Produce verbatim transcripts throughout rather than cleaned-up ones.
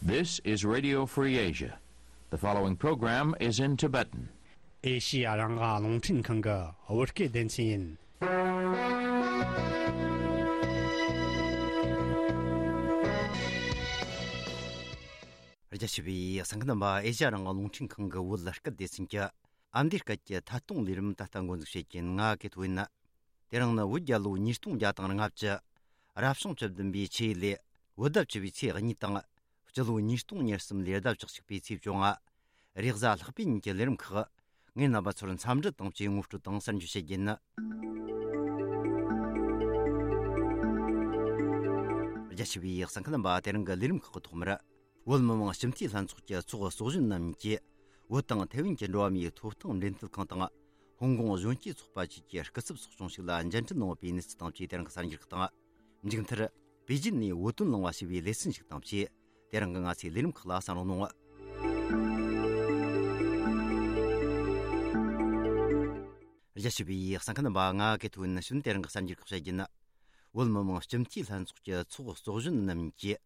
This is Radio Free Asia. The following program is in Tibetan. ཨེ་ཤི་ཡ་རང་དབང་རླུང་འཕྲིན་ཁང་གི་བོད་སྐད་སྡེ་ཚན་ཡིན། རྒྱ་ཆེ་བའི་གསན་མཁན་རྣམ་པ། ཨེ་ཤི་ཡ་རང་དབང་རླུང་འཕྲིན་ཁང་གི་བོད་སྐད་སྡེ་ཚན་གྱི་ཨ་མདོའི་སྐད་ཀྱི་ཐད་གཏོང་ལས་རིམ་ད་ལྟ་འགོ་འཛུགས་བྱེད་ཀྱིན། ང་གི་ཐོ་ཡིན། དེ་རིང་ནི་བོད་རྒྱལ་ལོ་ཉིས་སྟོང་བརྒྱ་དང་ལྔ་བཅུ། རབ་བྱུང་བཅུ་བདུན་པའི་ཆུ་ཡོས་ལོའི་བོད་ཟླ་བཅུ་པའི་ཚེས་གཉིས་དང་། སྤྱི་ལོ་ཉིས་སྟོང་ཉེར་གསུམ་ལོའི་ཟླ་བཅུ་གཅིག་པའི་ཚེས་བཅོ་ལྔ། རེས་གཟའ་ལྷག་པའི་ཉིན་གྱི་ལས་རིམ་ཁག་ངས་རྣམ་པ་ཚོར་འཚམས་འདྲི་དང་བཅས་ངོ་སྤྲོད་དང་གསར་འགྱུར་བཤད་རྒྱུ་ཡིན། རྒྱ་ཆེ་བའི་གསན་མཁན་རྣམ་པ། དེ་རིང་གི་ལས་རིམ་ཁག་གི་ཐོག་མར། བོད་མི་མང་སྤྱི་འཐུས་ལྷན་ཚོགས་ཀྱི་ཚོགས་གཙོ་གཞོན་རྣམ་གཉིས་ཀྱིས། བོད་དང་ཐའེ་ཝན་གྱི་འགྲོ་བ་མིའི་ཐོབ་ཐང་འབྲེལ་མཐུད་ཁང་དང་། ཧོང་ཀོང་གཞོན་སྐྱེས་ཚོགས་པ་བཅས་ཀྱི་སྐུ་ཚབ་ཚོགས་ཆུང་ཞིག་ལ་མཇལ་འཕྲད་གནང་བའི་གནས་ཚུལ་དང་བཅས། དེ་རིང་གི་གསར་འགྱུར་ཁག་དང་། མཇུག་མཐར། པེ་ཅིན་ནས་བོད་དོན་གླེང་བ་ཞེས་པའི་ལེ་ཚན་ཞིག་དང་བཅས། དེ་རིང་གི་ང་ཚོའི་ལས་རིམ་ཁག་ལ་གསན་རོགས་གནང་། རྒྱ་ཆེ་བའི་གསན་མཁན་རྣམ་པ། ང་གི་ཐོ་ཡིན། དེ་རིང་གི་གསར་འགྱུར་ཁག་བཤད་རྒྱུ་ཡིན། བོད་མི་མང་སྤྱི་འཐུས་ལྷན་ཚོགས་ཀྱི་ཚོགས་གཙོ་གཞོན་རྣམ་གཉིས་ཀྱིས།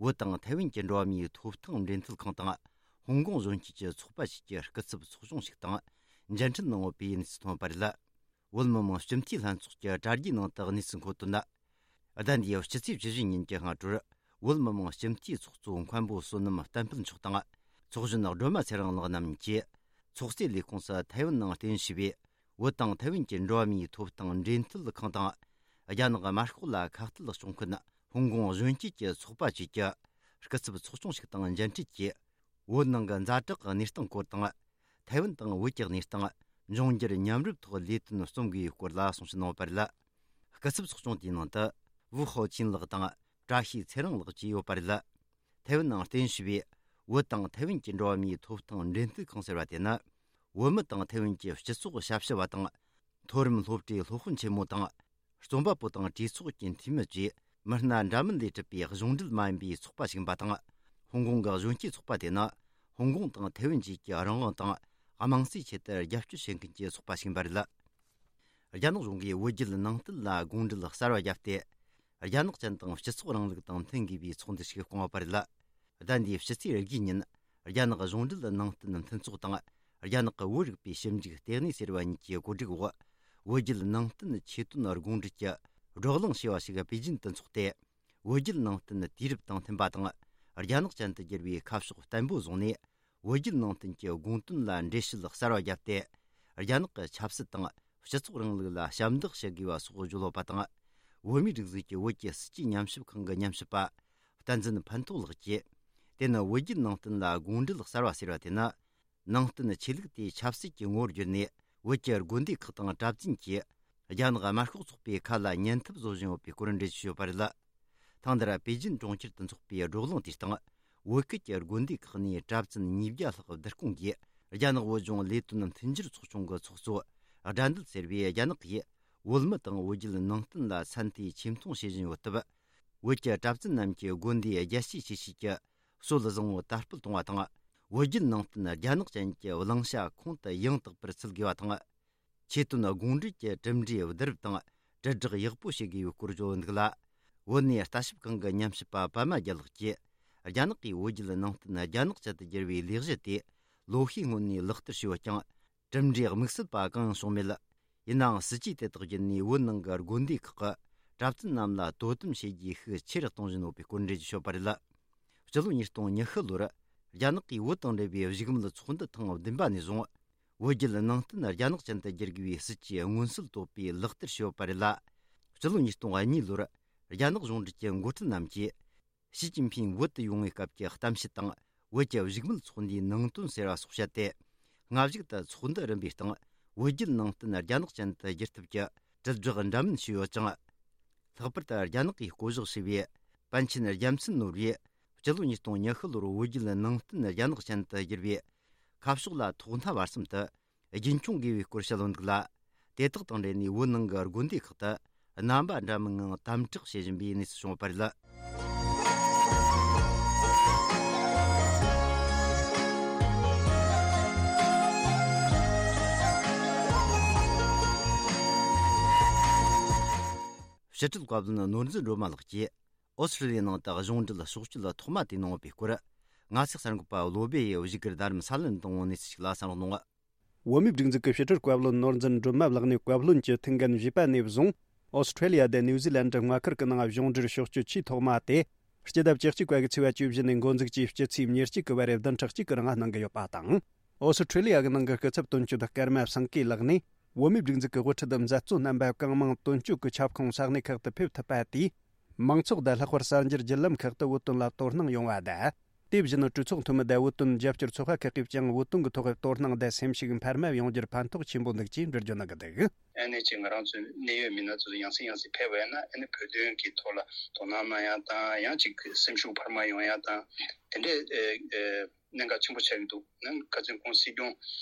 བོད་དང་ཐའེ་ཝན་གྱི་འགྲོ་བ་མིའི་ཐོབ་ཐང་འབྲེལ་མཐུད་ཁང་དང་། ཧོང་ཀོང་གཞོན་སྐྱེས་ཀྱི་ཚོགས་པ་བཅས་ཀྱི་སྐུ་ཚབ་ཚོགས་ཆུང་ཞིག་དང་མཇལ་འཕྲད་གནང་ཡོད་པའི་གནས་ཚུལ་ཐོན་པ་རེད། བོད་མི་མང་སྤྱི་འཐུས་ལྷན་ཚོགས་ཀྱི་དྲ་རྒྱའི་ནང་དུ་གནས་ཚུལ་འཁོད་དོན། ཟླ་འདིའི་སྤྱི་ཚེས་བཅུ་བཞི་ཉིན་གྱི་སྔ་དྲོར། བོད་མི་མང་སྤྱི་འཐུས་ཚོགས་གཙོ་མཁན་པོ་བསོད་ནམས་བསྟན་འཕེལ་མཆོག་དང་། ཚོགས་གཞོན་སྒྲོལ་མ་ཚེ་རིང་ལགས་རྣམ་གཉིས་ཀྱིས། ཚོགས་གཙོའི་ལས་ཁུངས་སུ་ཐའེ་ཝན་ནང་རྟེན་གཞི་བྱས་པའི་བོད་དང་ཐའེ་ཝན་གྱི་འགྲོ་བ་མིའི་ཐོབ་ཐང་འབྲེལ་མཐུད་ཁང་དང་། རྒྱ་ནག་དམར་ཤོག་ལ་ཁ་གཏད་གཅོག་མཁན་ཧོང་ཀོང་གཞོན་སྐྱེས་ཀྱི་ཚོགས་པ་བཅས་ཀྱི་སྐུ་ཚབ་ཚོགས་ཆུང་ཞིག་དང་མཇལ་འཕྲད་ཀྱིས། བོད་ནང་གི་ཛ་དྲག་གི་གནས་སྟངས་སྐོར་དང་། ཐའེ་ཝན་དང་བོད་ཀྱི་གནས་སྟངས། འབྱུང་འགྱུར་མཉམ་རུབ་ཐོག་ལས་དོན་རྩོམ་དགོས་པའི་སྐོར་ལ་གསུང་བཤད་གནང་བ་རེད། སྐུ་ཚབ་ཚོགས་ཆུང་དེའི་ནང་དུ། ཝུའུ་ཧའོ་ཆིན་ལགས་དང་། བཀྲ་ཤིས་ཚེ་རིང་ལགས་བཅས་ཡོད་པ་རེད། ཐའེ་ཝན་ནང་རྟེན་གཞི་བའི་བོད་དང་ཐའེ་ཝན་གྱི་འགྲོ་བ་མིའི་ཐོབ་ཐང་འབྲེལ་མཐུད་ཁང་ཟེར་བ་དེ་ནི། བོད་མི་དང་ཐའེ་ཝན་གྱི་སྤྱི་ཚོགས་ཞབས་ཞུ་བ་དང་། མཐོ་རིམ་སློབ་གྲྭའི་སློབ་དཔོན་ཆེན་མོ་དང་། རྩོམ་པ་པོ་དང་གྲོས་ཚོགས་ཀྱི་འཐུས་མི་བཅས་མི་སྣ་འདྲ་མིན་ལས་གྲུབ་པའི་གཞུང་འབྲེལ་མ་ཡིན་པའི་ཚོགས་པ་ཞིག་ཡིན་པ་དང་། ཧོང་ཀོང་གི་གཞོན་སྐྱེས་ཚོགས་པ་དེ་ནི། ཧོང་ཀོང་དང་ཐའེ་ཝན་བཅས་ཀྱི་རང་དབང་དང་། དམངས་གཙོའི་ཆེད་དུ་རྒྱབ་སྐྱོར་བྱེད་མཁན་གྱི་ཚོགས་པ་ཞིག་ཡིན་པ་རེད། རྒྱ་ནག་གཞུང་གིས་བོད་བརྒྱུད་ནང་བསྟན་ལ་དགོངས་འགྲེལ་གསར་བ་བརྒྱབ་སྟེ། རྒྱ་ནག་ཅན་དང་སྤྱི་ཚོགས་རིང་ལུགས་དང་མཐུན་དགོས་པའི་ཚོགས་འདུ་ཞིག་བསྐོང་བ་རེད། ཟླ་འདིའི་ཕྱི་ཚེས་བརྒྱད་ཉིན། རྒྱ་ནག་གཞུང་འབྲེལ་ནང་བསྟན་མཐུན་ཚོགས་དང་། རྒྱ་ནག་གི་བོད་རིག་པའི་ཞིབ་འཇུག་ལྟེ་གནས་ཟེར་བ་གཉིས་ཀྱི་གོ་སྒྲིག་འོག་བོད་བརྒྱུད་ནང་བསྟན་ཆོས་དོན་དགོངས་འགྲེལ་གྱི་བགྲོ་གླེང་ཞེས་པ་ཞིག་པེ་ཅིན་དུ་འཚོགས་ཏེ། བོད་བརྒྱུད་ནང་བསྟན་དུས་རབས་དང་མཐུན་པ་དང་། རྒྱ་ནག་ཅན་དུ་བསྒྱུར་བའི་ཁ་ཕྱོགས་བརྟན་པོ་བཟུང་ནས། བོད་བརྒྱུད་ནང་བསྟན་གྱི་དགོངས་དོན་ལ་འགྲེལ་བཤད་གསར་བ་བརྒྱབ་སྟེ། རྒྱ་ནག་གི་ཆབ་སྲིད་དང་སྤྱི་ཚོགས་རིང་ལུགས་ལ་ཞབས་འདེགས་ཞུ་དགོས་པ་སོགས་བརྗོད་ཡོད་པ་དང་། བོད་མིའི་སྒྲིག་འཛུགས་ཀྱི་བོད་ཀྱི་སྲིད་ཇུས་ཉམས་ཞིབ་ཁང་གི་ཉམས་ཞིབ་པ། བསྟན་འཛིན་ཕན་ཐོགས་ལགས་ཀྱིས། དེ་ནི་བོད་བརྒྱུད་ནང་བསྟན་ལ་དགོངས་འགྲེལ་གསར་བ་ཟེར་བ་དེ་ནི། ནང་བསྟན་ཆོས་ལུགས་དེ་ཆབ་སྲིད་ཀྱི་ངོ་བོར་བསྒྱུར་ནས། བོད་ཀྱི་དགོན་སྡེ་ཁག་དང་གྲྭ་བཙུན་གྱིས། རྒྱ་ནག་དམར་ཤོག་ཚོགས་པའི་ཁ་ལ་ཉན་ཐབས་བཟོ་བཞིན་ཡོད་པའི་སྐོར་འགྲེལ་བརྗོད་བྱས་ཡོད་པ་རེད། ཐེངས་འདིར་པེ་ཅིན་གྲོང་ཁྱེར་དུ་འཚོགས་པའི་བགྲོ་གླེང་དེའི་སྟེང་། བོད་ཁུལ་གྱི་དགོན་སྡེ་ཁག་ནས་གྲྭ་བཙུན་ཉིས་བརྒྱ་ལྷག་བསྡུ་སྐོང་གིས། རྒྱ་ནག་བོད་ལྗོངས་ལས་དོན་མཐུན་འགྱུར་ཚོགས་ཆུང་གི་ཚོགས་གཙོ་སྒྲ་འདུལ་ཟེར་བས། རྒྱ་ནག་གིས་བོད་མི་དང་བོད་བརྒྱུད་ནང་བསྟན་ལ་ཚད་མཐོའི་ཆེ་མཐོང་བྱེད་བཞིན་ཡོད་སྟབས། བོད་ཀྱི་གྲྭ་བཙུན་རྣམས་ཀྱིས་དགོན་སྡེའི་རྒྱལ་གཅེས་ཆེ་བཞེས་ཀྱི་སྲོལ་བཟང་བོ་དར་སྤེལ་གཏོང་བ་དང་། བོད་བརྒྱུད་ནང་བསྟན་རྒྱ་ནག་ཅན་གྱི་བླང་བྱ་ཁོང་དུ་ཡང་དག་པར་ཚུད་དགོས་པ་དང་། ཆོས་དོན་དགོངས་འགྲེལ་གྱི་གྲུབ་འབྲས་བསྡུ་རུབ་དང་དྲིལ་བསྒྲགས་ཡག་པོ་བྱེད་དགོས་པའི་སྐོར་བརྗོད་འདུག་ལ། བོད་གནས་ལྟ་ཞིབ་ཁང་གི་ཉམས་ཞིབ་པ་པད་མ་རྒྱལ་ལགས་ཀྱིས། རྒྱ་ནག་གིས་བོད་བརྒྱུད་ནང་བསྟན་རྒྱ་ནག་ཅན་དུ་བསྒྱུར་བའི་ལས་གཞི་དེ་ལོ་ཤས་སྔོན་ནས་ལག་བསྟར་བྱས་ཡོད་ཀྱང་། གྲུབ་འབྲས་དམིགས་བསལ་པ་གང་ཡང་བྱུང་མེད། ཡིན་ནའང་སྲིད་ཇུས་དེ་དག་བརྒྱུད་ནས་བོད་ནང་གི་དགོན་སྡེ་ཁག་གི་གྲྭ་བཙུན་རྣམས་ལ་དོ་དམ་བྱེད་རྒྱུའི་ཤུགས་ཆེ་རུ་གཏོང་བཞིན་ཡོད་པའི་སྐོར་འགྲེལ་བརྗོད་བྱས་ཡོད་པ་རེད། སྤྱི་ལོ་ཉིས་སྟོང་ཉི་ཤུ་ལོར་རྒྱ་ནག་གིས་བོད་དང་འབྲེལ་བའི་བཞུགས་མོལ་ཚོགས་འདུ་ཐེངས་བདུན་པ་ནས་བཟུང་། བོད་བརྒྱུད་ནང་བསྟན་རྒྱ་ནག་ཅན་དུ་བསྒྱུར་དགོས་པའི་སྲིད་ཇུས་མངོན་གསལ་དོད་པོས་ལག་བསྟར་བྱས་ཡོད་པ་རེད་ལ། སྤྱི་ལོ་ཉིས་སྟོང་གཉིས་ལོར་རྒྱ་ནག་གཞུང་འབྲེལ་གྱི་འགོ་ཁྲིད་རྣམས་ཀྱིས། ཞི་ཅིན་ཕིང་བོད་དུ་ཡོང་བའི་སྐབས་ཀྱི་གཏམ་བཤད་དང་། བོད་ཀྱི་བཞུགས་མོལ་ཚོགས་འདུའི་ནང་དོན་ཟེར་བ་སོགས་བཤད་དེ། སྔ་གཞུག་ཏུ་ཚོགས་འདུ་རིམ་པའི་སྟེང་། བོད་བརྒྱུད་ནང་བསྟན་རྒྱ་ནག་ཅན་དུ་བསྒྱུར་ཐབས་ཀྱི་དྲིལ་བསྒྲགས་འདྲ་མིན་བྱས་ཡོད་ཅིང་། ལྷག་པར་དུ་རྒྱ་ནག་གིས་བསྐོ་གཞག་བྱས་པའི་པཎ་ཆེན་རྒྱལ་མཚན་ནོར་བུས། སྤྱི་ལོ་ཉིས་སྟོང་ཉི་ཤུ་ལོར་བོད་བརྒྱུད་ནང་བསྟན་རྒྱ་ནག་ཅན་དུ་བསྒྱུར་བའི་ཁ་ཕྱོགས་ལ་ཐོག་མཐའ་བར་གསུམ་དུ་རྒྱུན་འཁྱོངས་དགོས་པའི་སྐོར་བཤད་ཡོད་འདུག་ལ། དེ་དག་དང་འབྲེལ་ནས་བོད་ནང་གི་དགོན་སྡེ་ཁག་ཏུ་རྣམ་པ་འདྲ་མིན་ངང་དམ་དྲག་བྱེད་བཞིན་པའི་གནས་ཚུལ་བྱུང་ཡོད་པ་རེད། ཕྱི་དྲིལ་བཀའ་བློན་ནོར་འཛིན་སྒྲོལ་མ་ལགས་ཀྱིས། ཨོ་སི་ཀྲི་ལི་ཡའི་ནང་དུ་གཞུང་འབྲེལ་ཕྱོགས་བསྐྱོད་ཐོག་མ་དེ་གནང་བའི་སྐོར། ངག་ཚིག་གསར་འགོད་པ་བློ་སྦེ་ཡིས་བཞུགས་སྒར་རྡ་རམ་ས་ལ་ནས་བཏང་བའི་གནས་ཚུལ་ཞིག་ལ་བསམ་བློ་གཏོང་བ། བོད་མིའི་སྒྲིག་འཛུགས་ཀྱི་ཕྱི་དྲིལ་བཀའ་བློན་ནོར་འཛིན་སྒྲོལ་མ་ལགས་ནས་བཀའ་བློན་གྱི་ཐུགས་འགན་བཞེས་པ་ནས་བཟུང་། ཨོ་སི་ཁྲེ་ལི་ཡ་དང་ནིའུ་ཛི་ལན་ཌི་མངའ་ཁུལ་གྱི་ནང་གཞུང་འབྲེལ་ཕྱོགས་བསྐྱོད་ཆེས་ཐོག་མ་དེ། སྤྱི་ཟླ་བཅུ་གཅིག་པ་གི་ཚེས་པ་བཅུ་བཞི་ནས་འགོ་འཛུགས་ཀྱིས་སྤྱི་ཚེས་ཉེར་གཅིག་གི་བར་བདུན་ཕྲག་གཅིག་གི་རིང་གནང་གི་ཡོད་པ་དང་། ཨོ་སི་ཁྲེ་ལི་ཡ་གི་ནང་གི་སྐུ་ཚབ་དོན་གཅོད་ཀརྨ་སེང་གེ་ལགས་ནས། བོད་མིའི་སྒྲིག་འཛུགས་ཀྱི་དབུ་ཁྲིད་མཛད་གཙོ་རྣམ་པ་གང་མང་དོན་གཅོད་ཀྱི་ཁྱབ་ཁོངས་ས་གནས་ཁག་ཏུ་ཕེབས་ཐུབ་པ་དེས། མང་ཚོགས་དང་ལྷག་པར་གསར་འགྱུར་བརྒྱུད་ལམ་ཁག་ཏུ་བོད་དོན་ལ་དོ་སྣང་ཡོང་བ་དང་། དེ་བཞིན་གྲོས་ཚོགས་འཐུས་མི་དང་བོད་དོན་རྒྱབ་སྐྱོར་ཚོགས་པ་ཁག་གིས་ཀྱང་བོད་དོན་གྱི་ཐོག་དོ་སྣང་དང་སེམས་ཤུགས་འཕར་མ་ཡོང་རྒྱུར་ཕན་ཐོགས་ཆེན་པོ་འདུག་ཅེས་འགྲེལ་བརྗོད་གནང་གི་འདུག། ཨ་ནེ་ཅིག་ང་རང་ཚོའི་གནད་ཡོད་མི་སྣ་ཚོ་ཡང་སེ་ཡང་སེ་ཕེབས་པ་ཡིན་ན། ཨ་ནེ་བོད་དོན་གྱི་ཐོག་ལ་དོ་སྣང་གནང་ཡ་དང་། ཡང་ཅིག་སེམས་ཤུགས་འཕར་མ་ཡོང་ཡ་དང་། དེ་འདྲའི་ཨེ་ཨེ་གནད་འགག་ཆེན་པོ་ཆགས་ཀྱི་འདུག། ནམ་ཁ་སང་ཁོང་སྲིད་སྐྱོང་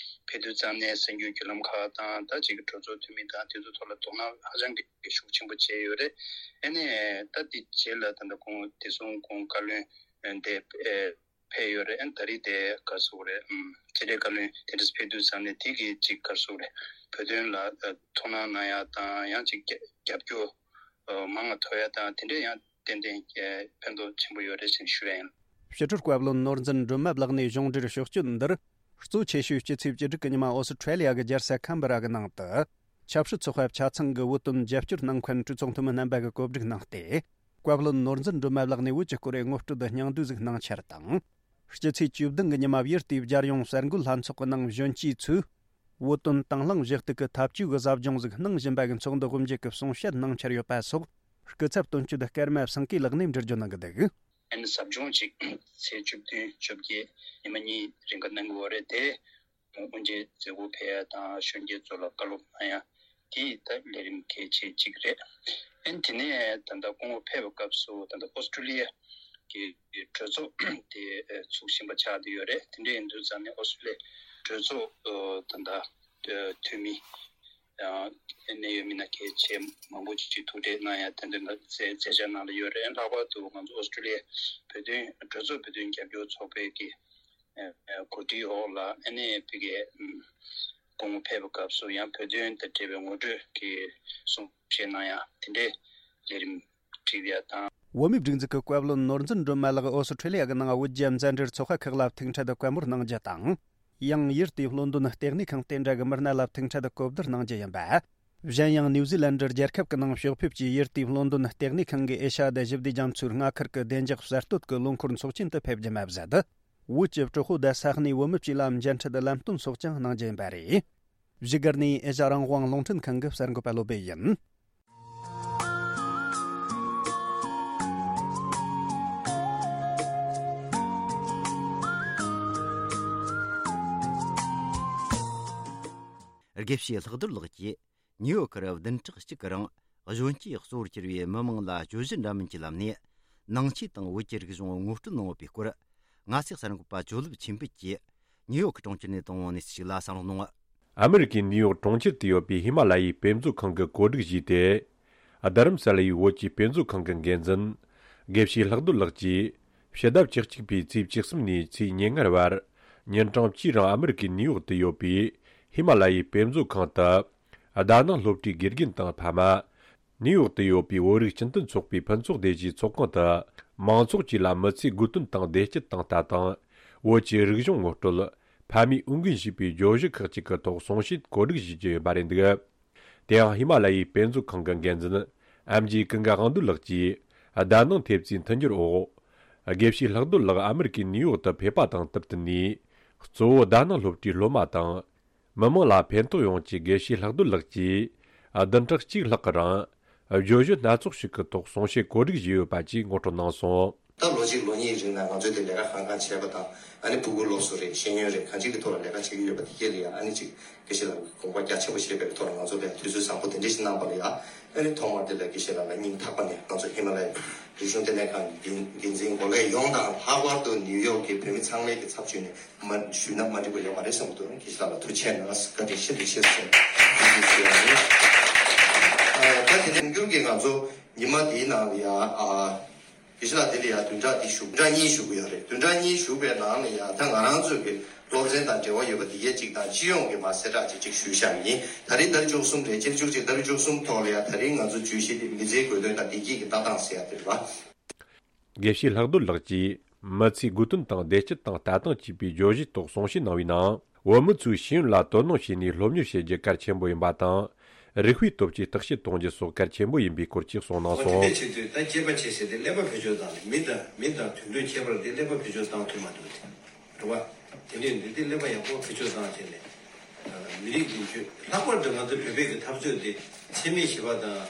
ཕེབས་དུས་ཙམ་ནས་གསར་འགྱུར་བརྒྱུད་ལམ་ཁག་དང་། ད་ཅིག་གྲོས་ཚོགས་འཐུས་མི་དང་དེ་ཚོའི་ཐོག་ལ་དོ་སྣང་ཧ་ཅང་གི་ཤུགས་ཆེན་པོ་བྱས་ཡོད་རེད། ཨ་ནེ་ད་དེ་རྗེས་ལ་ད་ལྟ་ཁོང་དེ་སོང་ཁོང་བཀའ་བློན་དེ་ཕེབས་ཡོད་རེད། ཨ་ནེ་ད་རེས་དེ་ག་རེ་ཟེར་དགོས་རེད། ཕྱི་དྲིལ་བཀའ་བློན་དེ་འདྲ་ཕེབས་དུས་ཙམ་ནས་དེ་གི་ཅིག་ག་རེ་ཟེར་དགོས་རེད། བོད་དོན་ལ་དོ་སྣང་གནང་ཡ་དང་། ཡང་ཅིག་རྒྱབ་སྐྱོར་མང་ང་ཐོབ་ཡ་དང་། དེ་འདྲ་ཡང་ཏན་ཏན་ཕན་ཐོགས་ཆེན་པོ་ཡོད་རེད་ཅེས་ཞུ་ཡ་ཡིན། ཕྱི་དྲིལ་བཀའ་བློན་ནོར་འཛིན་སྒྲོལ་མ་ལགས་ནས་གཞུང་འབྲེལ་ཕྱོགས་བསྐྱོད་འདིར། གཙོ་ཆེ་ཤོས་སྤྱི་ཚེས་བཅུ་དྲུག་གི་ཉི་མ་ཨོ་སི་ཁྲེ་ལི་ཡ་གི་རྒྱལ་ས་ཁམ་བྷ་ར་གི་ནང་དུ། ཆབ་སྲིད་ཚོགས་པ་ཆ་ཚང་གི་བོད་དོན་རྒྱབ་སྐྱོར་གནང་མཁན་གྲོས་ཚོགས་འཐུས་མི་རྣམ་པ་གིས་གོ་སྒྲིག་གནང་སྟེ། བཀའ་བློན་ནོར་འཛིན་སྒྲོལ་མ་ལགས་ནས་བོད་ཀྱི་སྐོར་ངོ་སྤྲོད་དང་སྙིང་བསྡུས་ཟིག་གནང་འཆར་དང་། སྤྱི་ཚེས་བཅུ་བདུན་གི་ཉི་མ་ཡུལ་དེའི་རྒྱལ་ཡོངས་གསར་འགོད་ལྷན་ཚོགས་ཀྱི་ནང་གཞོན་སྐྱེས་ཚོས། བོད་དོན་དང་བླངས་གཞི་གཏུག་གི་འཐབ་ཇུས་ཀྱི་ཟབ་སྦྱོང་ཟིག་གནང་བཞིན་པ་གི་ཚོགས་འདུ་དབུ་འབྱེད་ཀྱི་གསུང་བཤད་གནང་འཆར་ཡོད་པ་སོགས། སྐུ་ཚབ་དོན་གཅོད་ཀརྨ་སེང་གེ་ལགས་ནས་འགྲེལ་བརྗོད་གནང་གི་འདུག། ཨ་ནི་ཟབ་སྦྱོང་ཅིག་ཚེས་བཅུ་བདུན་བཅོ་བརྒྱད་ཉི་མ་གཉིས་རིང་ག་གནང་གི་ཡོད་རེད་དེ། དབུ་འབྱེད་མཛད་སྒོ་ཕེབས་ཡ་དང་། གཞོན་སྐྱེས་ཚོ་ལ་བཀའ་སློབ་གནང་ཡ་དེ་ད་ལས་རིམ་གལ་ཆེ་གཅིག་རེད། ཨ་ནི་དེ་ནས་ད་ལྟ་སྐུ་ངོ་ཕེབས་པའི་སྐབས་སུ་ད་ལྟ་ཨོ་སི་ཀྲུ་ལི་ཡ་གི་གྲོས་ཚོགས་དེ་ཚུགས་བཞིན་པ་ཆགས་བསྡད་ཡོད་རེད། དེ་འདྲ་ཡིན་དུས་ཙམ་ནས་ཨོ་སི་ཀྲུ་ལི་ཡའི་གྲོས་ཚོགས་ད་ལྟ་འཐུས་མི་ཡང་གནད་ཡོད་མི་སྣ་གལ་ཆེ་མང་པོ་ཅིག་ཐུག་འཕྲད་གནང་ཡ་དེ་འདྲ་མཛད་མཛད་འཆར་གནང་ལ་ཡོད་རེད། ལྷག་པར་དུ་ང་ཚོ་ཨོ་སི་ཀྲུ་ལི་ཡའི་བོད་དོན་གྲོས་ཚོགས་བོད་དོན་རྒྱབ་སྐྱོར་ཚོགས་པའི་གི་གོ་སྒྲིག་འོག་ལ་ཨ་ནེ་ཕ་གིའི་སྐུ་ངོ་ཕེབས་པའི་སྐབས་སུ་ཡང་བོད་དོན་དང་འབྲེལ་བའི་ངོ་སྤྲོད་ཀྱི་གསུང་བཤད་གནང་ཡ་དེ་འདྲའི་ལས་རིམ་བསྒྲིགས་ཡ་དང་། བོད་མིའི་སྒྲིག་འཛུགས་ཀྱི་བཀའ་བློན་ནོར་འཛིན་སྒྲོལ་མ་ལགས་ཨོ་སི་ཁྲེ་ལི་ཡ་གི་ནང་བོད་རྒྱ་མཛའ་འབྲེལ་ཚོགས་པ་ཁག་ལ་ཐུག་འཕྲད་དུ་བཀའ་མོལ་གནང་རྒྱུ་དང་། ཡང་ཡུལ་དེའི་ལོན་ཌོན་ལྟེ་གནས་ཁང་དེ་འདྲ་གི་མི་སྣ་ལ་ཐུག་འཕྲད་དུ་གོ་བསྡུར་གནང་རྒྱུ་ཡིན་པ། གཞན་ཡང་ནིའུ་ཛི་ལན་ཌི་རྒྱལ་ཁབ་ཀྱི་ནང་ཕྱོགས་ཕེབས་ཀྱིས་ཡུལ་དེའི་ལོན་ཌོན་ལྟེ་གནས་ཁང་གི་ཨེ་ཤ་ཡ་དང་ཞི་བདེ་རྒྱ་མཚོའི་མངའ་ཁུལ་གྱི་བདེ་འཇགས་གསར་གཏོད་ཀྱི་ལོ་འཁོར་ཚོགས་ཆེན་དུ་ཕེབས་རྒྱུ་མ་ཟད། བོད་ཀྱི་གྲོགས་པོ་དང་ས་གནས་བོད་མི་བཅས་ལ་མཇལ་འཕྲད་དང་ལམ་སྟོན་སོགས་ཀྱང་གནང་རྒྱུ་ཡིན་པ་རེད། བཞུགས་སྒར་ནས་ཨེ་ཤ་ཡ་རང་དབང་རླུང་འཕྲིན་ཁང་གི་གསར་འགོད་པ་བློ་སྦེ་ཡིན། དགེ་བཤེས་ལྷག་རྡོར་ལགས་ཀྱིས་ཉིའུ་ཡོག་གི་བདུན་ཕྲག་གཅིག་གི་རིང་གཞོན་སྐྱེས་གཙོ་བོར་གྱུར་བའི་མི་མང་ལ་བརྗོད་གཞི་འདྲ་མིན་གྱི་ལམ་ནས་ནང་ཆོས་དང་བོད་ཀྱི་རིག་གཞུང་ངོ་སྤྲོད་གནང་ཡོད་པའི་སྐོར། ང་ཚོའི་གསར་འགོད་པ་ཇོ་ལེབ་ཆོས་འཕེལ་གྱིས་ཉིའུ་ཡོག་གི་གྲོང་ཁྱེར་ནས་བཏང་བའི་གནས་ཚུལ་ཞིག་ལ་བསམ་བློ་གནང་། ཨ་མི་རི་ཀའི་ནིའུ་ཡོག་གྲོང་ཁྱེར་དུ་ཡོད་པའི་ཧི་མ་ལ་ཡའི་དཔེ་མཛོད་ཁང་གིས་གོ་སྒྲིག་ཞུས་ཏེ། རྡ་རམ་ས་ལ་ཡི་བོད་ཀྱི་དཔེ་མཛོད་ཁང་གི་འགན་འཛིན་དགེ་བཤེས་ལྷག་རྡོར་ལགས་ཀྱིས་ཕྱི་ཟླ་བཅུ་གཅིག་པའི་ཚེས་བཅུ་གསུམ་ནས་ཚེས་ཉེར་ལྔ་བར་ཉིན་གྲངས་གཅིག་རིང་ཨ་མི་རི་ཀའི་ནིའུ་ཡོག་ཏུ་ཡོད་པའི་ཧི་མ་ལ་ཡའི་དཔེ་མཛོད་ཁང་དུ་ཟླ་སྣང་སློབ་གྲྭའི་དགེ་རྒན་དང་ཕ་མ། ནིའུ་ཡོག་ཏུ་ཡོད་པའི་བོད་རིགས་སྤྱི་མཐུན་ཚོགས་པའི་ཕུན་ཚོགས་སྡེ་བཞིའི་ཚོགས་ཁང་དུ་མང་ཚོགས་བཅས་ལ་མི་ཚེའི་དགོས་དོན་དང་བདེ་སྐྱིད་དང་ལྟ་སྟངས། བོད་ཀྱི་རིག་གཞུང་ངོ་སྤྲོད། ཕ་མས་འོས་འགན་བཞེས་པའི་བརྗོད་གཞི་ཁག་ཅིག་གི་ཐོག་གསུང་བཤད་གོ་སྒྲིག་ཞུ་རྒྱུ་ཡོད་པ་རེད་འདུག། དེ་ཡང་ཧི་མ་ལ་ཡའི་དཔེ་མཛོད་ཁང་གི་འགན་འཛིན་ཨེམ་ཇི་ཀུན་དགའ་དབང་འདུས་ལགས་ཀྱིས་ཟླ་སྣང་ཐེབས་རྩའི་མཐུན་འགྱུར་འོག་དགེ་བཤེས་ལྷག་རྡོར་ལགས་ཨ་མི་རི་ཀའི་ནིའུ་ཡོག་ཏུ་ཕེབས་པ་དང་བསྟུན་ནས། གཙོ་བོ་ཟླ་སྣང་སློབ་གྲྭའི་སློབ་མ་དང་། མི་མང་ལ་ཕན་ཐོགས་ཡོང་ཆེད་དགེ་བཤེས་ལྷག་རྡོར་ལགས་ཀྱིས་བདུན་ཕྲག་གཅིག་ལྷག་གི་རིང་བརྗོད་གཞི་སྣ་ཚོགས་ཤིག་གི་ཐོག་གསུང་བཤད་གོ་སྒྲིག་བྱས་ཡོད་པ་བཅས་ངོ་སྤྲོད་གནང་སོང་། ད་ལོ་གཅིག་ལོ་གཉིས་རིང་ལ་ང་ཚོས་དེ་ལས་ཀ་གང་གང་བྱས་པ་དང་། ཨ་ནི་ཕྲུ་གུ་སློབ་གསོ་རེད། ཤེས་ཡོན་རེད། གང་ཅིའི་ཐོག་ལ་ལས་ཀ་བྱེད་ཀྱི་ཡོད་པ་དེ་གས་ལ་ཡང་ཨ་ནི་ཅིག་དགེ་བཤེས་ལགས་ཀྱིས་དགོངས་པ་རྒྱ་ཆེན་པོ་བཞེས་པའི་ཐོག་ལ་ང་ཚོ་ལ་དུས་ཚོད་བཟང་པོ་དེ་འདྲ་ཞིག་གནང་པ་ལ་ཡང་། ཨ་ནི་ཐོག་མར་དེ་ལ་དགེ་བཤེས་ལགས་ལ་སྙིང་ཐག་པ་ནས་ང་ཚོ་ཧི་མ་ལ་ཡའི་རིག་གཞུང་ལྟེ་གནས་ཁང་གི་འགན་འཛིན་འགོ་ཁྲིད་ཡོངས་དང་། ལྷག་པར་དུ་ནིའུ་ཡོག་གི་བོད་མི་ཚང་མའི་གི་ཚབ་ཞུས་ནས་མ་ཞུས་ན་མ་འགྲིག་པ་ཡོད་མ་རེད་བསམ་གྱི་འདུག། དགེ་བཤེས་ལགས་ལ་ཐུགས་རྗེ་གནང་། བཀའ་དྲིན་ཤིན་ཏུ་ཆེ་ཟེར་ཐུགས་རྗེ་ཆེ་ཞུ་ཡ་ཡིན། ཨ། ད་དེ་ནས་འགྱུར་གྱི་ང་ཚོ་ཉི་མ་དེའི་ནང་ལ་ཡ། ཨ། དགེ་བཤེས་ལགས་དེ་ལ་ཡ་བདུན་ཕྲག་འདི་བཞུགས། བདུན་ཕྲག་གཉིས་བཞུགས་ཀྱི་ཡོད་རེད། བདུན་ཕྲག་གཉིས་བཞུགས་པའི་ནང་ལ་ཡ་ད་ང་རང་ཚོའི་གི་སློབ་ཚན་དང་འབྲེལ་བ་ཡོད་པ་དེ་གས་གཅིག་དང་། སྤྱི་ཡོངས་ཀྱི་མ་གསལ་བསྒྲགས་ཅིག་ཅིག་ཞུས་བཞག་ཡིན། ད་རེས་ཏ་རིག་བཅུ་གསུམ་རེད། སྤྱི་ཟླ་བཅུ་གཅིག་ཏ་རིག་བཅུ་གསུམ་ཐོག་ལ་ཡ་ད་རེས་ང་ཚོ་བརྗོད་གཞི་དེ་མི་ཚེའི་དགོས་དོན་དང་བདེ་སྐྱིད་ཀྱི་ལྟ་སྟངས་ཟེར་ཡ་དེ་རེད་པ། དགེ་བཤེས་ལྷག་རྡོར་ལགས་ཀྱིས་ མི་ཚེའི་དགོས་དོན་དང་བདེ་སྐྱིད་དང་ལྟ་སྟངས་བཅས་པའི་བརྗོད་གཞིའི་ཐོག་གསུང་བཤད་གནང་བའི་ནང་། བོད་མི་ཚོས་ཤེས་ཡོན་ལ་དོ་སྣང་བྱས་ནས་སློབ་གཉེར་བྱེད་རྒྱུ་གལ་ཆེན་པོ་ཡིན་པ་དང་། རིགས་པའི་སྟོབས་ཀྱིས་བརྟག་དཔྱད་གཏོང་རྒྱུ་སོགས་གལ་ཆེན་པོ་ཡིན་པའི་སྐོར་གྱི་གསུངས་གནང་སོང་། འོ་དེ་འདྲ་བྱེད་དུས་ད་སྐྱེས་པ་བྱས་ཟེར་ཏེ་ཀླད་པ་བེད་སྤྱོད་བཏང་ནས་མི་དང་མི་དང་དུད་འགྲོའི་ཁྱད་པར་དེ་ཀླད་པ་བེད་སྤྱོད་བཏང་ཐུབ་མ་ཐུབ་དེ་རེད་བ། དེ་འདྲ་ཡིན་དུས་དེ་ཀླད་པ་ཡག་པོ་བེད་སྤྱོད་བཏང་བྱས་ནས་མི་རིགས་འདི་ཚོས་ལྷག་པར་དུ་ང་ཚོ་བོད་པའི་གི་འཐབ་རྩོད་དེ་འཚེ་མེད་ཞི་བ་དང་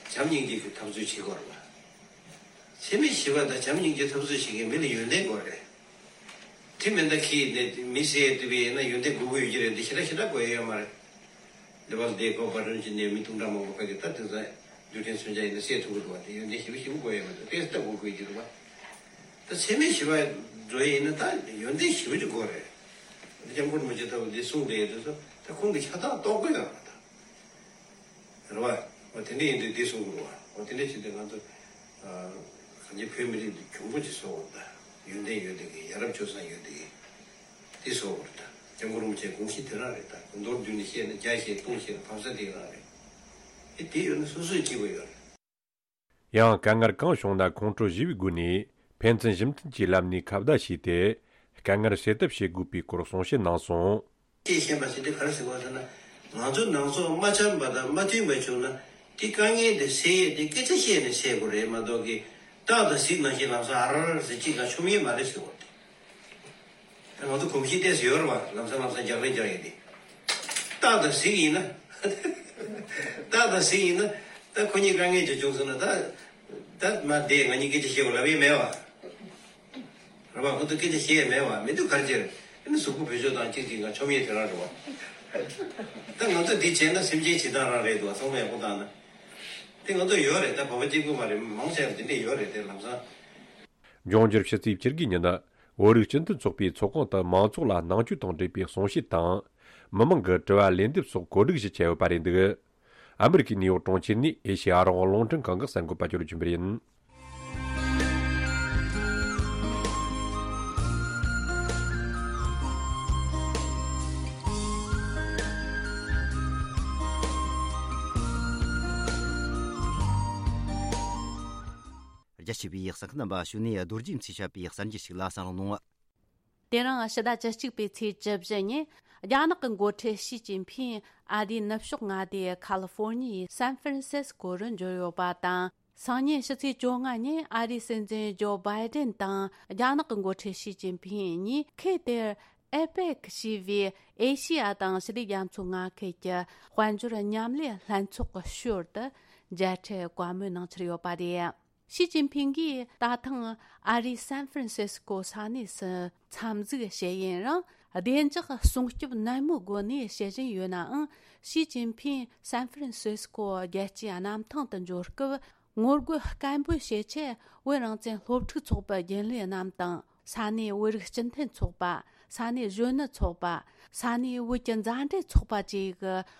བྱམས་སྙིང་རྗེ་གི་འཐབ་རྩོད་བྱེད་དགོས་རེད་བ། འཚེ་མེད་ཞི་བ་དང་བྱམས་སྙིང་རྗེ་འཐབ་རྩོད་བྱེད་མཁན་མི་ལ་ཡོན་ཏན་དགོས་རེད། དེ་མིན་ད་ཁྱི་ནས་མི་བསད་དུས་ཡིན་ན་ཡོན་ཏན་དགོས་ཀྱི་ཡོད་ཀྱི་རེད་འདི་ཞེ་དྲག་ཞེ་དྲག་དགོས་ཡ་ཡོད་མ་རེད། འདི་བར་འདི་གོ་བར་རིམ་གྱི་ནས་མི་དུང་གྲ་མང་པོ་ཕ་གི་ད་དེང་སང་རྒྱུ་ཕྲན་མཚོན་ཆ་ཡིན་ན་བསད་ཐུབ་ཀྱི་འདུག་བ། དེ་ཡོན་ཏན་ཞེ་པོ་ཞེ་པོ་དགོས་ཡ་མ་རེད། དཔེ་ལྟ་དགོས་དགོས་ཀྱི་འདུག་བ། ད་འཚེ་མེད་ཞི་བ་འགྲོ་ཡ་ཡིན་ན་ད་ཡོན་ཏན་ཞེ་པོ་ཅིག་དགོས་རེད། འདི་སྐྱབས་མགོན་རིན་པོ་ཆེ་ལྟ་བུ་འདི་གསུངས་བསྡད་ཡ་དེ་ཚོ་ད་ཁོང་གི་ཆ་ཚང་རྟོགས་དགོས་ཡོད་རེད་ད། རེད་བ། འོ་དེ་འདྲ་ཡིན་དུས་འདི་གསུང་དགོས་རེད་བ། འོ་དེ་འདྲ་བྱས་ཏེ་ང་ཚོ་གང་ཅི་བོད་མི་རིགས་འདི་གྱོང་པོ་ཅིག་བཟོ་དགོས་རེད་ད། ཡོན་ཏན་ཡོད་དེ་གི་ཡ་རབས་སྤྱོད་བཟང་ཡོད་དེ་གི་དེ་བཟོ་དགོས་རེད་ད། སྐྱབས་མགོན་རིན་པོ་ཆེའི་དགོངས་གཞི་དེ་རང་རེད་ད། མདོར་བསྡུས་ནས་བཤད་ན་རྒྱ་བཤད་སྟོང་བཤད་ན་བབ་ས་དེ་རང་རེད། ཨེ་དེ་ཡོད་ན་སོ་སོའི་སྐྱིད་པོ་ཡོད་རེད། ཡང་དཀའ་ངལ་གང་བྱུང་ན་ཁོང་ཁྲོ་ཞི་བའི་སྒོ་ནས་ཕན་ཚུན་ཞི་མཐུན་གྱི་ལམ་ནས་ཁ་བརྡ་བྱས་ཏེ་དཀའ་ངལ་སེལ་ཐབས་བྱེད་དགོས་པའི་སྐོར་གསུང་བཤད་གནང་སོང་། ཅེས་བཤད་པ་ཞིག་དེ་ག་རེ་ཟེར་བ་ཟེར་ན། ང་ཚོ་ནང་སོག་མ་འཆམ་པ་དང་མ་མཐུན་པ་བྱུང་ན་དེ་དཀའ་ངལ་དེ་སེལ་ཡས་དེ་སྐད་ཆ་བཤད་ནས་སེལ་དགོས་རེད་མ་གཏོགས་ཀི་སྟག་དང་གཟིག་ནང་བཞིན་ལམ་སང་ཨ་ར་ར་ཟེར་གཅིག་ག་ཆོམ་ཡས་མ་རེད་ཟེར་བ་དེ། ད་ང་ཚོ་གོམས་གཤིས་ཏོག་ཙམ་ཡོད་རེད་བ། ལམ་སང་ལམ་སང་རྒྱག་རེས་རྒྱག་ཡས་དེ། སྟག་དང་གཟིག་ཡིན་ན། སྟག་དང་གཟིག་ཡིན་ན་ད་ཁོ་གཉིས་དཀའ་ངལ་ཅིག་བྱུང་སོང་ན་ད། ད་མ་བསྡད་ང་གཉིས་སྐད་ཆ་བཤད་དགོས་ལབ་ཡས་མེད་བ། རེད་བ། ཁོ་ཚོ་སྐད་ཆ་བཤད་ཡས་མེད་བ། མི་འདུག་ག་རེ་བྱས་རེད། ཨ་ནི་གཟུགས་པོ་བེད་སྤྱོད་བཏང་གཅིག་གཅིག་ང་ཆོམ་ཡས་དེ་རང་རེད་བ། ད་ང་ཚོ་འདི་བྱས་ན་སེམས་ཅན་བྱེད་སྟངས་རང་རེད་འདུག་བ། ཚང་མ་ཡག་པོ་བཏང་ན། དེ་ང་ཚོ་ཡོད་རེད་ད། བོད་པ་གཅིག་པུ་མ་རེད། མང་ཆེ་བ་འདི་འདྲས་ཡོད་རེད་དེ་ལམ་སང་། འབྱུང་འགྱུར་ཕྱི་ཚེས་བཅུ་དགུའི་ཉིན། བོད་རིགས་སྤྱི་མཐུན་ཚོགས་པའི་ཚོགས་ཁང་དུ་མང་ཚོགས་ལ་ནང་ཆོས་དང་འབྲེལ་བའི་གསུང་བཤད་དང་། མི་མང་གི་དྲི་བ་ལན་འདེབས་སོགས་གོ་སྒྲིག་ཞུ་འཆར་ཡོད་པ་རེད་འདུག་ཨ་མི་རི་ཀའི་ནིའུ་ཡོག་གྲོང་ཁྱེར་ནས་ཨེ་ཤེ་ཡ་རང་དབང་རླུང་འཕྲིན་ཁང་གི་གསར་འགོད་པ་ཅོ་ལི་ཆོས་འཕེལ་ཡིན། རྒྱ་ཆེ་བའི་གསན་མཁན་རྣམ་པ་ཞུ་ནས་རྡོ་རྗེ་མཚེས་བཤད་པའི་གསར་འགྱུར་ཞིག་ལ་གསན་རོགས་གནང་། དེ་རིང་ཕྱི་ཟླ་བཅུ་གཅིག་པའི་ཚེས་བཅུ་བཞི་ཉིན། རྒྱ་ནག་གི་འགོ་ཁྲིད་ཞི་ཅིན་ཕིང་ཨ་རིའི་ནུབ་ཕྱོགས་མངའ་སྡེ་ཁ་ལི་ཧྥོར་ཉི་ཡའི་སན་ཧྥ་རན་སིས་ཀོ་རུ་འབྱོར་ཡོད་པ་དང་། སང་ཉིན་ཕྱི་ཚེས་བཅོ་ལྔ་ཉིན་ཨ་རིའི་སྲིད་འཛིན་ཇོ་བྷའི་ཏན་དང་རྒྱ་ནག་གི་འགོ་ཁྲིད་ཞི་ཅིན་ཕིང་གཉིས་ཁུལ་དེར་ཨེ་པེག་ཞེས་པའི་ཨེ་ཤེ་ཡ་དང་ཞི་བདེ་རྒྱ་མཚོའི་མངའ་ཁུལ་གྱི་དཔལ་འབྱོར་མཉམ་ལས་ལྷན་ཚོགས་ཀྱི་ཞོར་དུ་མཇལ་འཕྲད་བཀའ་མོལ་གནང་འཆར་ཡོད་པ་རེད། ཞི་ཅིན་ཕིང་གིས་ད་ཐེངས་ཨ་རིའི་སན་ཧྥ་རན་སིས་ཀོ་ས་གནས་སུ་འཚམས་གཟིགས་བྱས་ཡུན་རིང་། བདེ་འཇགས་སྲུང་སྐྱོབ་ནན་མོའི་སྒོ་ནས་བྱེད་བཞིན་ཡོད་ནའང་། ཞི་ཅིན་ཕིང་སན་ཧྥ་རན་སིས་ཀོ་རྒྱལ་སྤྱིའི་གནམ་ཐང་དུ་འབྱོར་སྐབས། ངོ་རྒོལ་སྐད་འབོད་བྱེད་ཆེད་བོད་རང་བཙན་སློབ་ཕྲུག་ཚོགས་པའི་རྒྱུན་ལས་རྣམས་དང་། ས་གནས་བོད་རིགས་སྤྱི་མཐུན་ཚོགས་པ། ས་གནས་གཞོན་ནུ་ཚོགས་པ། ས་གནས་བོད་ཀྱི་མཛའ་འབྲེལ་ཚོགས་པ་བཅས་ཀྱི་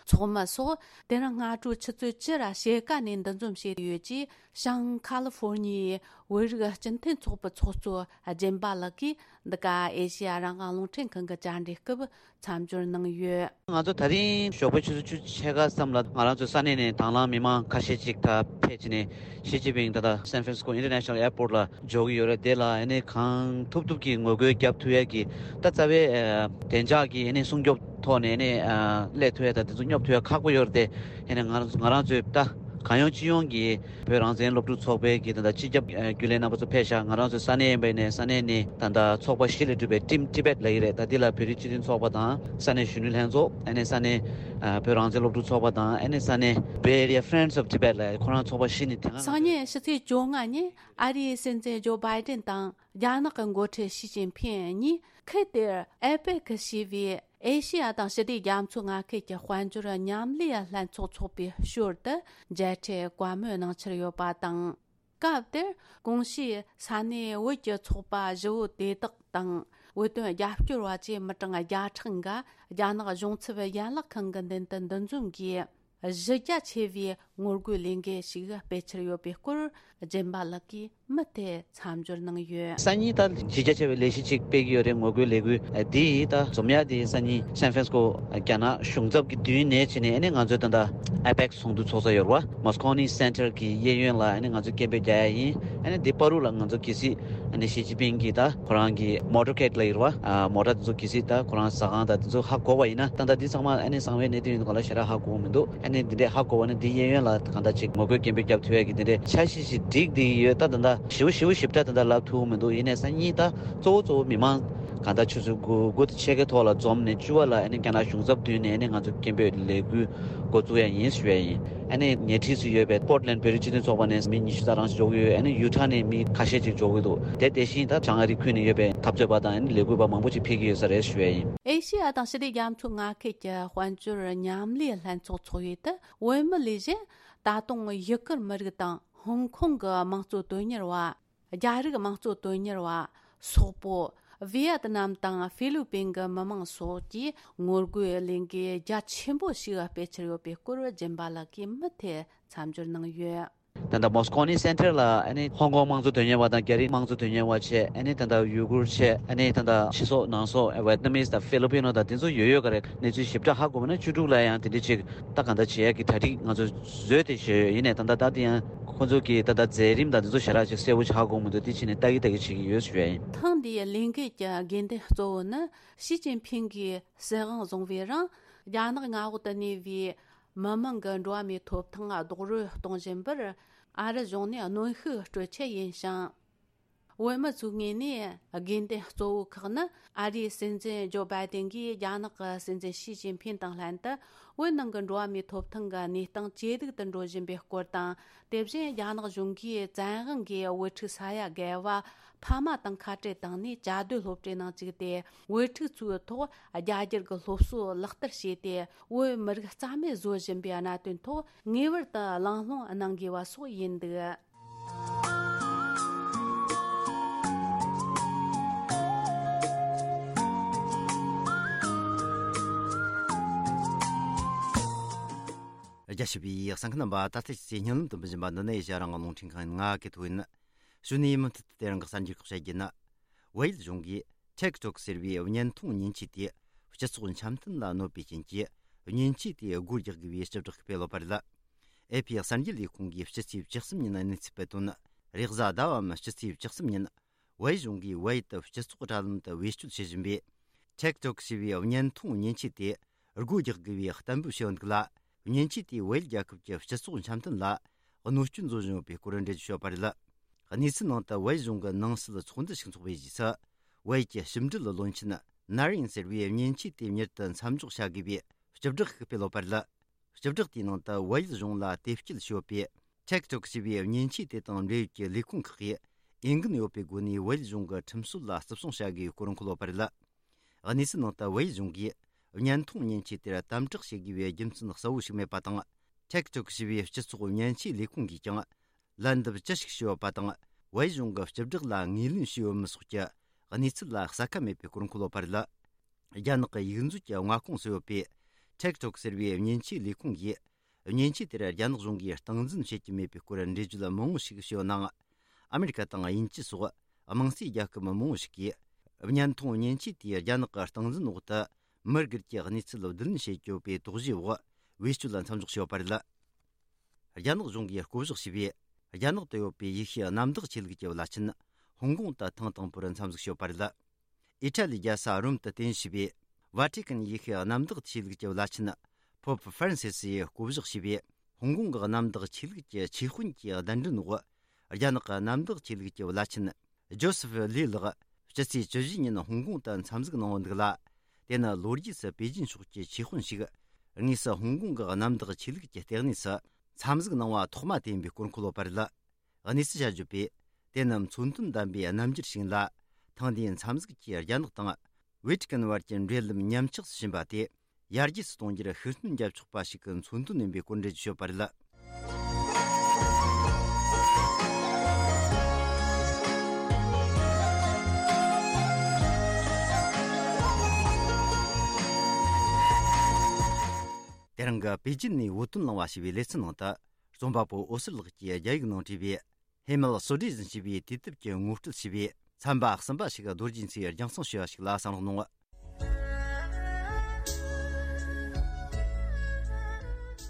ཚོགས་མི་སོགས་དེ་རིང་སྔ་དྲོ་ཆུ་ཚོད་བཅུ་ར་ཕྱེད་ཀ་ནས་འདུ་འཛོམས་བྱས་ཡོད་ཅེས། བྱང་ཁ་ལི་ཧྥོར་ཉི་ཡའི་བོད་རིགས་སྤྱི་མཐུན་ཚོགས་པའི་ཚོགས་གཙོ་སྦྱིན་པ་ལགས་ཀྱིས་འདི་ག་ཨེ་ཤེ་ཡ་རང་དབང་རླུང་འཕྲིན་ཁང་གི་བཅར་འདྲི་སྐབས་མཚམས་སྦྱོར་གནང་ཡོད། ང་ཚོ་ད་རིང་ཞོགས་པའི་ཆུ་ཚོད་བཅུ་ཕྱེད་ཀ་ཙམ་ལ་ང་རང་ཚོའི་ས་གནས་ནས་དང་བླངས་མི་མང་ཁ་ཤས་ཅིག་ད་ཕེབས་བྱས་ནས་ཞི་ཅིན་ཕིང་ད་ལྟ་སན་ཧྥ་རན་སི་ཀོ་ཨིན་ཊར་ནེ་ཤ་ནལ་ཨེར་པོར་ལ་འབྱོར་གྱི་ཡོད་རེད། དེ་ལ་ཨ་ནི་གང་ཐུབ་ཐུབ་ཀྱིས་ངོ་རྒོལ་རྒྱབ་ཐུབ་ཡས་ཀྱི་ད་རྩ་བའི་ཨ་བདེ་འཇགས་ཀྱི་ཨ་ནི་སྲུང་སྐྱོབ་ཐོག་ནས་ཨ་ནི་ཨ་སླེབས་ཐུབ་ཡས་དང་དེ་ཚོ་སྙོབ་ཐུབ་ཡས་ཁག་པོ་ཡོད་རེད་དེ། ཨ་ནི་ང་རང་ང་རང་ཚོའི་ད་གང་ཡོང་ཅི་ཡོང་གིས་བོད་རང་བཙན་སློབ་ཕྲུག་ཚོགས་པའི་གི་ད་ལྟ་སྤྱི་ཁྱབ་ཨ་རྒྱུན་ལས་རྣམ་པ་ཚོ་ཕེབས་ཤག་ང་རང་ཚོའི་ས་གནས་ཡིན་པ་ཡིན་ནའི་ས་གནས་ནས་ད་ལྟ་ཚོགས་པ་བཞི་ལས་གྲུབ་པའི་Team Tibet ལབ་ཀྱི་རེད། ད་འདི་ལ་བོད་རིགས་སྤྱི་མཐུན་ཚོགས་པ་དང་ས་གནས་གཞོན་ནུ་ལྷན་ཚོགས། ཨ་ནི་ས་གནས་ཨ་བོད་རང་བཙན་སློབ་ཕྲུག་ཚོགས་པ་དང་། ཨ་ནི་ས་གནས་Bay Area Friends of Tibet ལབ་ཁོ་རང་ཚོགས་པ་བཞི་ནས་དེ་སང་སྔ་ཉིན་ཕྱི་ཚེས་བཅོ་ལྔ་ཉིན་ཨ་རིའི་སྲིད་འཛིན་ཇོ་བྷའི་ཏན་དང་རྒྱ་ནག་གི་འགོ་ཁྲིད་ཞི་ཅིན་ཕིང་གཉིས་ཁུལ་དེར་ཨེ་པེག་ཞེས་པའི་ཨེ་ཤེ་ཡ་དང་ཞི་བདེ་རྒྱ་མཚོའི་མངའ་ཁུལ་གྱི་དཔལ་འབྱོར་མཉམ་ལས་ལྷན་ཚོགས་ཚོགས་པའི་ཞོར་དུ་མཇལ་འཕྲད་བཀའ་མོལ་གནང་འཆར་ཡོད་པ་དང་། སྐབས་དེར་གོང་ཞུས་ས་གནས་བོད་ཀྱི་ཚོགས་པ་བཞི་བོ་དེ་དག་དང་བོད་དོན་རྒྱབ་སྐྱོར་བ་བཅས་མི་གྲངས་བརྒྱ་ཕྲག་འགའ་རྒྱ་ནག་གཞུང་ཚབ་ཡན་ལག་ཁང་གི་མདུན་དུ་འདུ་འཛོམས་ཀྱིས། གཞི་རྒྱ་ཆེ་བའི་ ངོ་རྒོལ་ལས་འགུལ་ཞིག་སྤེལ་འཆར་ཡོད་པའི་སྐོར། སྦྱིན་པ་ལགས་ཀྱིས་མུ་མཐུད་མཚམས་སྦྱོར་གནང་ཡོད། སང་ཉིན་ད་གཞི་རྒྱ་ཆེ་བའི་ལས་གཞི་ཅིག་སྤེལ་གྱི་ཡོད་རེད། ངོ་རྒོལ་ལས་འགུལ་འདི་ཡིས་ད་འཛོམས་ཡག་དེ་སང་ཉིན་སན་ཧྥ་རན་སི་ཀོ་རྒྱ་ནག་གཞུང་ཚབ་ཀྱི་མདུན་ནས་བྱས་ནས། ཨ་ནི་ང་ཚོས་ད་ལྟ་ཨེ་པེག་སི་ཚོགས་འདུ་ཚོགས་ས་ཡོད་རེད་བ། མོ་སི་ཀོ་ནི་སེན་ཊར་གྱི་གཡས་གཡོན་ལ་ཨ་ནི་ང་ཚོས་སྐད་འབོད་རྒྱག་ཡག་ཡིན། ཨ་ནི་འདི་བར་དུ་ལ་ང་ཚོ་གལ་སྲིད་ཨ་ནི་ཞི་ཅིན་ཕིང་གིས་ད་ཁོ་རང་གི་མོ་ཊར་ཁེཌ་ལ་ཡོད་རེད་བ། ཨ་མོ་ཊ་དེ་ཚོ་གལ་སྲིད་ད་ཁོ་རང་ཟ་ཁང་དང་དེ་ཚོ་ཧ་གོ་བ་ཡིན་ན། ད་ལྟ་འདི་ཚང་མ་ཨ་ནི་གསང་བའི་གནད་དོན་ཡིན་ག་ལ་ཞེ་དྲག་ཧ་གོ་གི་མི་འདུག་ཨ་ནི་འདི་འདྲས་ཧ་གོ་བ་ནི་འདི་གཡས་གཡོན་ལ་གང་ལྟར་ཅིག་ངོ་རྒོལ་སྐད་འབོད་རྒྱབ་ཐུབ་ཡག་གི་འདི་འདྲས་འཆར་གཞི་ཞིག་སྒྲིག་བསྡད་ཡོད། ད་ད་ལྟ་ཞེ་པོ་ཞེ་པོ་ཞིབ་ཕྲ་ད་ལྟ་ལབ་ཐུབ་མི་འདུག་ཡིན་ནའི་སང་ཉིན་ད་གཙོ་བོ་གཙོ་བོ་མི་མང་གང་ལྟར་ཆུ་ཚོད་དགུ་དགུ་དང་ཕྱེད་ཀའི་ཐོག་ལ་འཛོམས་ནས། བཅུ་པ་ལ་ཨ་ནི་རྒྱ་ནག་གཞུང་ཚབ་མདུན་ནས་ཨ་ནི་ང་ཚོ་སྐད་འབོད་ལས་འགུལ་འགོ་བཙུགས་ཡག་ཡིན་ཞུ་ཡག་ཡིན། ཨ་ནི་ཉེ་འཁྲིས་སུ་ཡོད་པའི་པོར་ཊི་ལེན་ཌི་བོད་རིགས་སྤྱི་མཐུན་ཚོགས་པ་ནས་མི་ཉི་ཤུ་ཙམ་རང་ཞིག་འབྱོར་གྱི་ཡོད། ཨ་ནི་ཡུ་ཊ་ནས་མི་ཁ་ཤས་ཅིག་འབྱོར་གྱི་འདུག་དེ་དེ་བཞིན་ད་བྱང་ཨ་རིའི་ཁུལ་ནས་ཡོད་པའི་འཐབ་རྩོད་པ་དང་ཨ་ནི་ལས་འགུལ་བ་མང་པོ་ཅིག་ཕེབས་ཀྱི་ཡོད་ས་རེད་ཞུ་ཡག་ཡིན། ཨེ་ཤེ་ཡ་དང་ཞི་བདེ་རྒྱ་མཚོའི་མངའ་ཁུལ་གྱི་དཔལ་འབྱོར་མཉམ་ལས་ལྷན་ཚོགས་ཚོགས་ཡུལ་དུ་བོད་མི་ལས་གཞན། ད་དུང་ཡུ་གུར་མི་རིགས་དང་ཧོང་ཀོང་གི་དམངས་གཙོ་དོན་གཉེར་བ། རྒྱ་རིགས་དམངས་གཙོ་དོན་གཉེར་བ། སོག་པོ། ཝི་ཡད་ནམ་དང་ཧྥི་ལི་པིན་གྱི་མི་མང་སོགས་ཀྱིས་ངོ་རྒོལ་ལས་འགུལ་རྒྱ་ཆེན་པོ་ཞིག་སྤེལ་འཆར་ཡོད་པའི་སྐོར། སྦྱིན་པ་ལགས་ཀྱིས་མུ་མཐུད་མཚམས་སྦྱོར་གནང་ཡོད། ད་ལྟ་མོ་སི་ཀོ་ནི་སེན་ཊར་ལ་ཨ་ནི་ཧོང་ཀོང་དམངས་གཙོ་དོན་གཉེར་བ་དང་རྒྱ་རིགས་དམངས་གཙོ་དོན་གཉེར་བ་བྱས། ཨ་ནི་ད་ལྟ་ཡུ་གུར་བྱས། ཨ་ནི་ད་ལྟ་ཕྱི་སོག་ནང་སོག་ཝེ་ཏི་ནམ་མི་དང་ཧྥི་ལི་པི་ནོ་དང་དེ་ཚོ་ཡོད་ཡོད་ག་རེད། གནས་ཚུལ་ཞིབ་ཕྲ་ཧ་གོ་བ་ན་བཅུ་དྲུག་ལ་ཡང་དེ་འདྲ་ཅིག་ད་གང་ལྟར་བྱེད་ཡག་གི་གྲ་སྒྲིག་ང་ཚོ་བཟོས་ཏེ་བཞག་ཡོད། ཡིན་ནའི་ད་ལྟ་ད་དེ་ཡང་ཁོང་ཚོ་གི་ད་ལྟ་མཛད་རིམ་དང་དེ་ཚོ་ཞེ་དྲག་ཅིག་གསལ་པོ་ཅིག་ཧ་གོ་མི་འདུག་དེ་བྱས་ནས་ལྟ་གི་ལྟ་གི་བྱེད་ཀྱི་ཡོད་ཞུ་ཡ་ཡིན། ཐེངས་འདིའི་ལས་འགུལ་གྱི་དགོས་འདུན་གཙོ་བོ་ནི་ཞི་ཅིན་ཕིང་གིས་སྲིད་དབང་བཟུང་བའི་རིང་རྒྱ་ནག་མངའ་འོག་ཏུ་གནས་པའི་མི་མང་གི་འགྲོ་བ་མིའི་ཐོབ་ཐང་རྡོག་རོལ་གཏོང་བཞིན་པར་ཨ་རི་གཞུང་ནས་གནོན་ཤུགས་སྤྲོད་ཆེད་ཡིན་ཞིང་། བོད་མི་ཚོའི་ངོས་ནས་དགོས་འདུན་གཙོ་བོ་ཁག་ནི། ཨ་རིའི་སྲིད་འཛིན་ཇོ་བྷའི་ཏིན་གྱིས་རྒྱ་ནག་གི་སྲིད་འཛིན་ཞི་ཅིན་ཕིན་དང་ལྷན་དུ་བོད་ནང་གི་འགྲོ་བ་མིའི་ཐོབ་ཐང་གི་གནས་སྟངས་ཇེ་སྡུག་ཏུ་འགྲོ་བཞིན་པའི་སྐོར་དང་། དེ་བཞིན་རྒྱ་ནག་གཞུང་གིས་བཙན་དབང་གིས་བོད་ཕྲུག་ས་ཡ་བརྒལ་བ་ཕ་མ་དང་ཁ་བྲལ་བཏང་ནས་བཅའ་སྡོད་སློབ་གྲྭའི་ནང་བཅུག་སྟེ། བོད་ཕྲུག་ཚོའི་ཐོག་རྒྱ་སྒྱུར་གྱི་སློབ་གསོ་ལག་བསྟར་བྱས་ཏེ། བོད་མི་རིགས་རྩ་མེད་བཟོ་བཞིན་པའི་གནད་དོན་ཐོག་ངེས་པར་དུ་གླེང་སློང་གནང་དགོས་པ་སོགས་ཡིན་འདུག་རྒྱ་ཆེ་བའི་གསན་མཁན་རྣམ་པ། ད་ལྟ་ཁྱེད་ཚོས་སྙན་ལམ་དུ་འབུལ་བཞིན་པ་འདི་ནི་ཨེ་ཤ་ཡ་རང་དབང་རླུང་འཕྲིན་ཁང་ཡིན། ང་གི་ཐོ་ཡིན། གཞུག་ནས་མུ་མཐུད་དུ་དེ་རིང་གི་གསར་འགྱུར་ཁག་བཤད་རྒྱུ་ཡིན། ཝེ་ཡལ་གཞུང་གིས་ཊིག་ཊོག་ཟེར་བའི་བརྙན་ཐུང་མཉེན་ཆས་དེ་སྤྱི་ཚོགས་འཆམ་མཐུན་ལ་གནོད་པའི་རྐྱེན་གྱིས། མཉེན་ཆས་དེ་སྒོ་རྒྱག་དགོས་པའི་སྤྱི་བསྒྲགས་ཤིག་སྤེལ་ཡོད་པ་རེད། ཨེ་ཕི་གསར་འགྱུར་ལས་ཁུངས་ཀྱིས་སྤྱི་ཚེས་བཅུ་གསུམ་ཉིན་གནས་ཚུལ་སྤེལ་དོན། རེས་གཟའ་ཟླ་བའམ་སྤྱི་ཚེས་བཅུ་གསུམ་ཉིན་ཝེ་གཞུང་གིས་ཝེ་ཡལ་དུ་སྤྱི་ཚོགས་དྲ་ལམ་དུ་བེད་སྤྱོད་བྱེད་བཞིན་པའི་ཊིག་ཊོག་ཞེས་པའི་བརྙན་ཐུང་མཉེན་ཆས་དེ་སྒོ་རྒྱག་དགོས་པའི་གཏན་འབེབས་བྱས་ཡོད་འདུག་ལ། མཉེན་ཆས་དེས་ཝེ་ཡལ་རྒྱལ་ཁབ་ཀྱི་སྤྱི་ཚོགས་འཆམ་མཐུན་ལ་གནོད་སྐྱོན་བཟོ་བཞིན་ཡོད་པའི་སྐོར་འགྲེལ་བརྗོད་བྱས་ཡོད་པ་རེད། གནས་ཚུལ་ནང་དུ་ཝེ་ཡལ་གཞུང་གི་ནང་སྲིད་ཚོགས་འདུ་ཞིག་འཚོགས་པའི་རྗེས་སུ། ཝེ་ཡལ་གྱི་ཞིབ་འབྲེལ་བློན་ཆེན་ནར་ཡིན་ཟེར་བའི་མཉེན་ཆས་དེ་མྱུར་དུ་མཚམས་འཇོག་བྱ་དགོས་པའི་སྤྱི་བསྒྲགས་ཤིག་སྤེལ་ཡོད་པ་རེད། སྤྱི་བསྒྲགས་དེའི་ནང་དུ་ཝེ་ཡལ་གཞུང་ལ་དེབ་སྐྱེལ་བྱས་ཡོད་པའི་ཊིག་ཊོག་ཞེས་པའི་མཉེན་ཆས་དེ་དང་འབྲེལ་ཡོད་ཀྱི་ལས་ཁུངས་ཁག་གིས་འོས་འགན་ཡོད་པའི་སྒོ་ནས་ཝེ་ཡལ་གཞུང་གི་ཁྲིམས་སྲོལ་ལ་བརྩི་སྲུང་བྱ་དགོས་པའི་སྐོར་འཁོད་ཡོད་པ་རེད། གནས་ཚུལ་ནང་དུ་ཝེ་ཡལ་གཞུང་གིས་བརྙན་ཐུང་མཉེན་ཆས་དེར་དམ་དྲག་བྱེད་དགོས་པའི་རྒྱུ་མཚན་གསལ་བོ་ཞིག་མེད་པ་དང་། ཊིག་ཊོག་ཞེས་པའི་སྤྱི་ཚོགས་མཉེན་ཆས་ལས་ཁུངས་ཀྱིས་ཀྱང་ལན་འདེབས་ཅི་ཞིག་ཞུས་ཡོད་པ་དང་། ཝེ་ཡལ་གཞུང་གི་སྤྱི་བསྒྲགས་ལ་ངོས་ལེན་བྱས་ཡོད་མེད་སོགས་ཀྱི་གནས་ཚུལ་ལ་གསལ་ཁ་མེད་པའི་སྐོར་འཁོད་ཡོད་པ་རེད། རྒྱ་ནག་གི་ཡིག་མཛོད་ཀྱི་མངའ་ཁོངས་སུ་ཡོད་པའི་ཊིག་ཊོག་ཟེར་བའི་མཉེན་ཆས་ལས་ཁུངས་ཀྱིས། མཉེན་ཆས་དེར་རྒྱ་ནག་གཞུང་གིས་སྟངས་འཛིན་བྱེད་ཀྱི་མེད་པའི་སྐོར་འགྲེལ་བརྗོད་མང་བོ་ཞིག་བྱས་ཡོད་ནའང་། ཨ་མེ་རི་ཀ་དང་དབྱིན་ཇི་སོགས་དམངས་གཙོའི་རྒྱལ་ཁབ་མང་བོ་ཞིག་གིས། བརྙན་ཐུང་མཉེན་ཆས་དེས་རྒྱ་ནག་གི་སྟངས་འཛིན་འོག་ཏུ་མི་སྒེར་གྱི་གནས་ཚུལ་བསྡུ་ལེན་བྱེད་ཀྱི་ཡོད་པའི་དོགས་གཞིའི་འོག་བེད་སྤྱོད་ལ་མཚམས་འཇོག་བྱས་ཡོད་པ་རེད། རྒྱ་ནག་གཞུང་གིས་བསྐོ་གཞག་བྱས་པའི་རྒྱ་ནག་ཏུ་ཡོད་པའི་ཡེ་ཤུའི་གནམ་བདག་ཆོས་ལུགས་ཀྱི་བླ་ཆེན་ཧོང་ཀོང་དུ་ཐེངས་དང་པོར་མཚམས་འཇོག་བྱས་ཡོད་པ་རེད། ཨི་ཊ་ལིའི་རྒྱལ་ས་རོམ་དུ་རྟེན་གཞི་བྱས་པའི་ཝ་ཊི་ཀན་ཡེ་ཤུའི་གནམ་བདག་ཆོས་ལུགས་ཀྱི་བླ་ཆེན་པོབ་ཧྥ་རན་སི་སི་ཡིས་བསྐོ་གཞག་བྱས་པའི་ཧོང་ཀོང་གི་གནམ་བདག་ཆོས་ལུགས་ཀྱི་ཆོས་དཔོན་གྱི་གདན་འདྲེན་འོག་རྒྱ་ནག་གི་གནམ་བདག་ཆོས་ལུགས་ཀྱི་བླ་ཆེན་ཇོ་སེ་ཕི་ལི་ལགས་སྤྱི་ཚེས་བཅུ་བཞི་ཉིན་ཧོང་ཀོང་དུ་མཚམས་འཇོག་གནང་ཡོད་འདུག་ལ། དེ་ནི་ལོ་རྒྱུས་སུ་པེ་ཅིན་ཕྱོགས་ཀྱི་ཆོས་དཔོན་ཞིག་དངོས་སུ་ཧོང་ཀོང་གི་གནམ་བདག་ཆོས་ལུགས་ཀྱི་ལྟེ་གནས་སུ་མཚམས་འཇོག་གནང་བ་ཐོག་མ་དེ་ཡིན་པའི་སྐོར་འཁོད་ཡོད་པ་རེད། གནས་ཚུལ་བྱ་བརྗོད་པས། དེ་ནི་མཚོན་དོན་ལྡན་པའི་རྣམ་འགྱུར་ཞིག་ཡིན་ལ། ཐེངས་འདིའི་མཚམས་འཇོག་གིས་རྒྱ་ནག་དང་ཝེ་ཊི་ཀན་བར་གྱི་འབྲེལ་ལམ་ཉམས་ཆག་ཏུ་ཕྱིན་པ་དེ་ཡར་རྒྱས་སུ་གཏོང་རྒྱུར་ཤུགས་སྣོན་རྒྱབ་ཆོག་པ་ཞིག་གི་མཚོན་དོན་ཡིན་པའི་སྐོར་འགྲེལ་བརྗོད་བྱས་ཡོད་པ་རེད། དེ་རིང་གི་པེ་ཅིན་ནས་བོད་དོན་གླེང་བ་ཞེས་པའི་ལེ་ཚན་ནང་དུ། རྩོམ་པ་པོ་འོད་ཟེར་ལགས་ཀྱིས་རྒྱ་ཡིག་ནང་བྲིས་པའི་ཧེ་མལ་སོ་ཌི་ཟིན་ཞེས་པའི་དུས་དེབ་ཀྱི་ངོ་སྤྲོད་ཞེས་པའི་ཚན་པ་གསུམ་པ་ཞིག་རྡོ་རྗེ་མཚོས་རྒྱང་སྲིང་ཞུས་པ་ཞིག་ལ་བསམ་བློ་གནང་།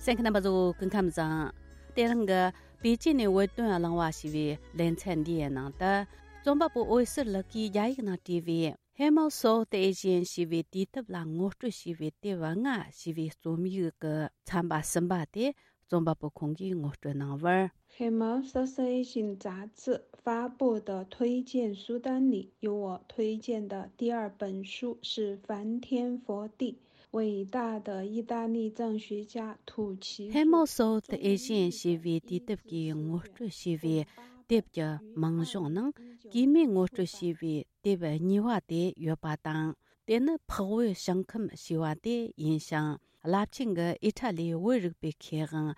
གསན་མཁན་རྣམ་པ་ཚོ་སྐུ་ཁམས་བཟང་། དེ་རིང་གི་པེ་ཅིན་ནས་བོད་དོན་གླེང་བ་ཞེས་པའི་ལེ་ཚན་འདིའི་ནང་དུ། རྩོམ་པ་པོ་འོད་ཟེར་ལགས་ཀྱིས་རྒྱ་ཡིག་ནང་བྲིས་པའི། Hemel South Asian ཞེས་པའི་དུས་དེབ་ལ་ངོ་སྤྲོད་བྱས་པའི་དེབ་ལྔ་ཞེས་པའི་རྩོམ་ཡིག་གི་ཚན་པ་གསུམ་པ་དེ་རྩོམ་པ་པོ་ཁོང་གིས་ངོ་སྤྲོད་གནང་བར། Hemel South Asian 杂志发布的推荐书单里，有我推荐的第二本书是《翻天覆地：伟大的意大利藏学家土奇》。Hemel South Asian ཞེས་པའི་དུས་དེབ་ཀྱིས་ངོ་སྤྲོད་བྱས་པའི་དེབ་ཀྱི་མིང་གཞུང་ནང་གུས་མོས་ངོ་སྤྲོད་བྱས་པའི་དེབ་གཉིས་པ་དེ་ཡོད་པ་དང་། དེ་ནི་འཕགས་བོད་ཞིང་ཁམས་ཞེས་པ་དེ་ཡིན་ཞིང་། རླབས་ཆེན་གྱི་ཨི་ཊ་ལིའི་བོད་རིག་པའི་མཁས་དབང་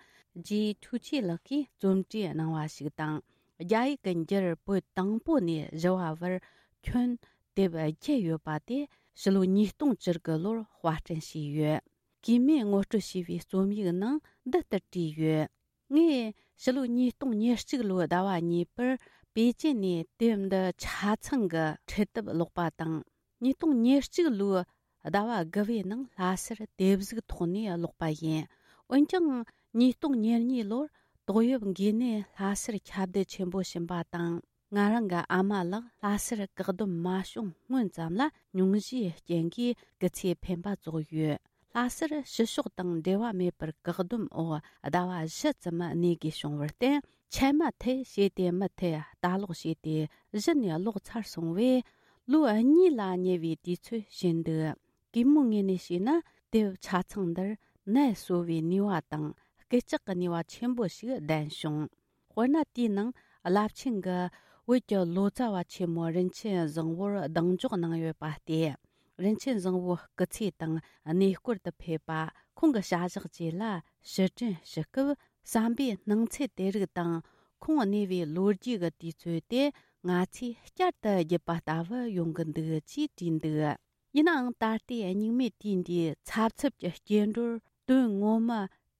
ཇི་ཐུ་ཆི་ལགས་ཀྱིས་རྩོམ་བྲིས་གནང་བ་ཞིག་དང་། རྒྱ་ཡིག་གི་འགྱུར་བོད་དང་པོ་ནས་བཞི་བ་བར་ཁྱོན་དེབ་བརྒྱད་ཡོད་པ་དེ་ཕྱི་ལོ་ཉིས་སྟོང་བཅུ་དགུ་ལོར་དཔར་སྐྲུན་བྱས་ཡོད། གུས་མོས་ངོ་སྤྲོད་བྱས་པའི་རྩོམ་ཡིག་ནང་འདི་ལྟར་བྲིས་ཡོད། ངས་ཕྱི་ལོ་ཉིས་སྟོང་ཉེར་གཅིག་ལོའི་ཟླ་བ་གཉིས་པར་པེ་ཅིན་ནས་དེབ་འདི་ཆ་ཚང་གི་ཁྲིད་དེབ་ཀློག་པ་དང་། ཉིས་སྟོང་ཉེར་གཅིག་ལོའི་ཟླ་བ་དགུ་པའི་ནང་ལྷ་སར་དེབ་གཟུགས་ཐོག་ནས་ཀློག་པ་ཡིན། འོན་ཀྱང་ཉིས་སྟོང་ཉེར་གཉིས་ལོར་ཏོག་དབྱིབས་འགོས་ནད་ལྷ་སར་ཁྱབ་གདལ་ཆེན་པོ་ཕྱིན་པ་དང་། ང་རང་གི་ཨ་མ་ལགས་ལྷ་སར་བཀག་སྡོམ་མ་བྱུང་སྔོན་ཙམ་ལ་སྙུང་གཞིའི་རྐྱེན་གྱིས་སྐུ་ཚེ་འཕེན་པ་རྫོགས་ཡོད། ལྷ་སར་ཕྱི་ཕྱོགས་དང་འབྲེལ་བ་མེད་པར་བཀག་སྡོམ་འོག་ཟླ་བ་བཞི་ཙམ་གནས་དགོས་བྱུང་བར་བརྟེན། ཆད་མ་ཐེ་ཞེས་ཏེ་མུ་མཐུད་ལྟ་ཀློག་བྱས་ཏེ་གཞི་ནས་ཀློག་ཚར་སོང་བས། ལོ་གཉིས་ལ་ཉེ་བའི་དུས་ཚོད་ཕྱིན་འདུག་གུས་མོའི་ངོས་ནས་བཤད་ན། དེབ་ཆ་ཚང་འདིར་ནད་གསོ་བའི་ནུས་པ་དང་སྐུལ་ལྕག་གི་ནུས་པ་ཆེན་པོ་ཞིག་ལྡན་བྱུང་། དཔེར་ན། དེའི་ནང་རླབས་ཆེན་གྱི་བོད་ཀྱི་ལོ་ཙཱ་བ་ཆེན་མོ་རིན་ཆེན་བཟང་བོར་གདེང་འཇོག་གནང་ཡོད་པ་སྟེ། རིན་ཆེན་བཟང་བོའི་སྐུ་ཚེ་དང་གནས་སྐོར་དུ་ཕེབས་པ། ཁོང་གི་བྱ་གཞག་བཅས་ལ་ཕྱིར་དྲན་ཞུ་སྐབས། བསམ་པའི་སྣང་ཚུལ་དེ་རིགས་དང་། ཁོང་གནས་པའི་ལོ་རྒྱུས་ཀྱི་དུས་ཚོད་དེ་ང་ཚོས་བསྐྱར་དུ་བརྒྱུད་པ་ལྟ་བུ་ཡོང་གི་འདུག་ཅེས་བྲིས་འདུག་ཡིན་ནའང་། ད་ལྟའི་སྙིགས་མའི་དུས་འདིའི་འཚབ་འཚུབ་ཀྱི་སྐྱེ་འགྲོར་དོན་ངོ་མ་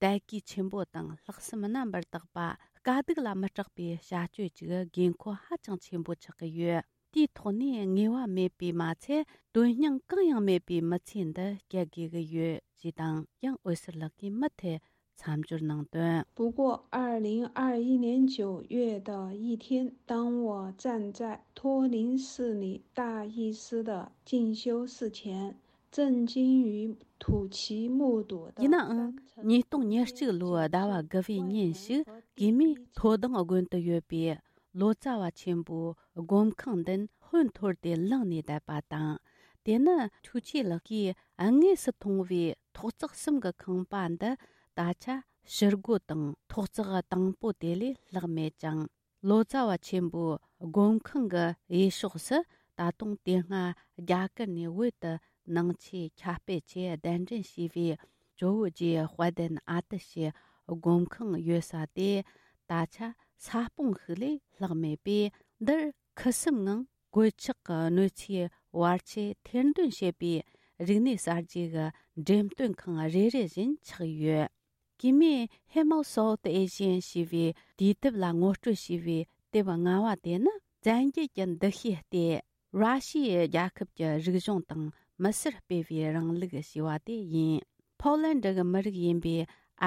དད་གུས་ཆེན་པོ་དང་ལྷག་བསམ་རྣམ་པར་དག་པ། དཀའ་སྡུག་ལ་མི་སྐྲག་པའི་བྱ་སྤྱོད་ཅིག་དགོས་མཁོ་ཧ་ཅང་ཆེན་པོ་ཆགས་ཀྱི་ཡོད། དེའི་ཐོག་ནས་ངེས་པ་མེད་པའི་མ་ཚད། དོན་སྙིང་གང་ཡང་མེད་པའི་མི་ཚེ་འདི་བསྐྱལ་དགོས་ཀྱི་ཡོད་ཅེས་དང་། ཡང་འོད་ཟེར་ལགས་ཀྱིས་མུ་མཐུད་མཚམས་སྦྱོར་གནང་དོན། 不过，二零二一年九月的一天，当我站在托林市里大医师的进修室前， 震惊于土奇目睹的 ཡིན་ནའང་། ཉིས་སྟོང་ཉེར་གཅིག་ལོའི་ཟླ་བ་དགུ་པའི་ཉིན་ཞིག་གུས་མོས་མཐོ་སྡང་དགོན་དུ་ཡོད་པའི་ལོ་ཙཱ་བ་ཆེན་པོའི་སྒོམ་ཁང་མདུན་ཧོན་འཐོར་ཏེ་ལངས་ནས་བསྡད་པ་དང་། དེ་ནི་ཐུའུ་ཆི་ལགས་ཀྱིས་དངོས་སུ་མཐོང་བའི་ཐོག་བརྩེགས་གསུམ་གྱི་ཁང་པ་འདི་ད་ཆ་ཕྱི་སྒོ་དང་ཐོག་བརྩེགས་དང་པོ་དེ་ལས་ལྷག་མེད་ཅིང་། ལོ་ཙཱ་བ་ཆེན་པོའི་སྒོམ་ཁང་གི་གཡས་ཕྱོགས་སུ་ད་དུང་དེ་སྔ་རྒྱ་གར་ནས་བོད་དུ་ནང་ཆོས་ཁྱབ་སྤེལ་ཆེད་གདན་འདྲེན་བྱས་པའི་ཇོ་བོ་རྗེ་དཔལ་ལྡན་ཨ་ཏི་ཤའི་སྒོམ་ཁང་ཡོད་ས་དེ་ད་ཆ་ས་སྤུངས་ཤིག་ལས་ལྷག་མེད་པས། འདིར་ཁུ་སིམ་ངང་གོད་ཆག་གི་གནོད་འཚེའི་བར་ཆད་ཐེར་འདོན་བྱེད་པའི་རིག་གནས་གསར་བརྗེ་གི་འགྲེམས་སྟོན་ཁང་རེ་རེ་བཞིན་ཆགས་ཡོད། གུས་མོས་Hemel South Asian ཞེས་པའི་དུས་དེབ་ལ་ངོ་སྤྲོད་བྱས་པའི་དེབ་ལྔ་བ་དེ་ནི། བཙན་རྒྱལ་གྱི་འདུ་ཤེས་ལྟེ། ར་ཤི་ཡའི་རྒྱལ་ཁབ་ཀྱི་རིག་གཞུང་དང་མི་སེར་སྤེལ་བའི་རིང་ལུགས་ཞེས་པ་དེ་ཡིན། ཕོ་ལན་ཌི་གི་མི་རིགས་ཡིན་པའི་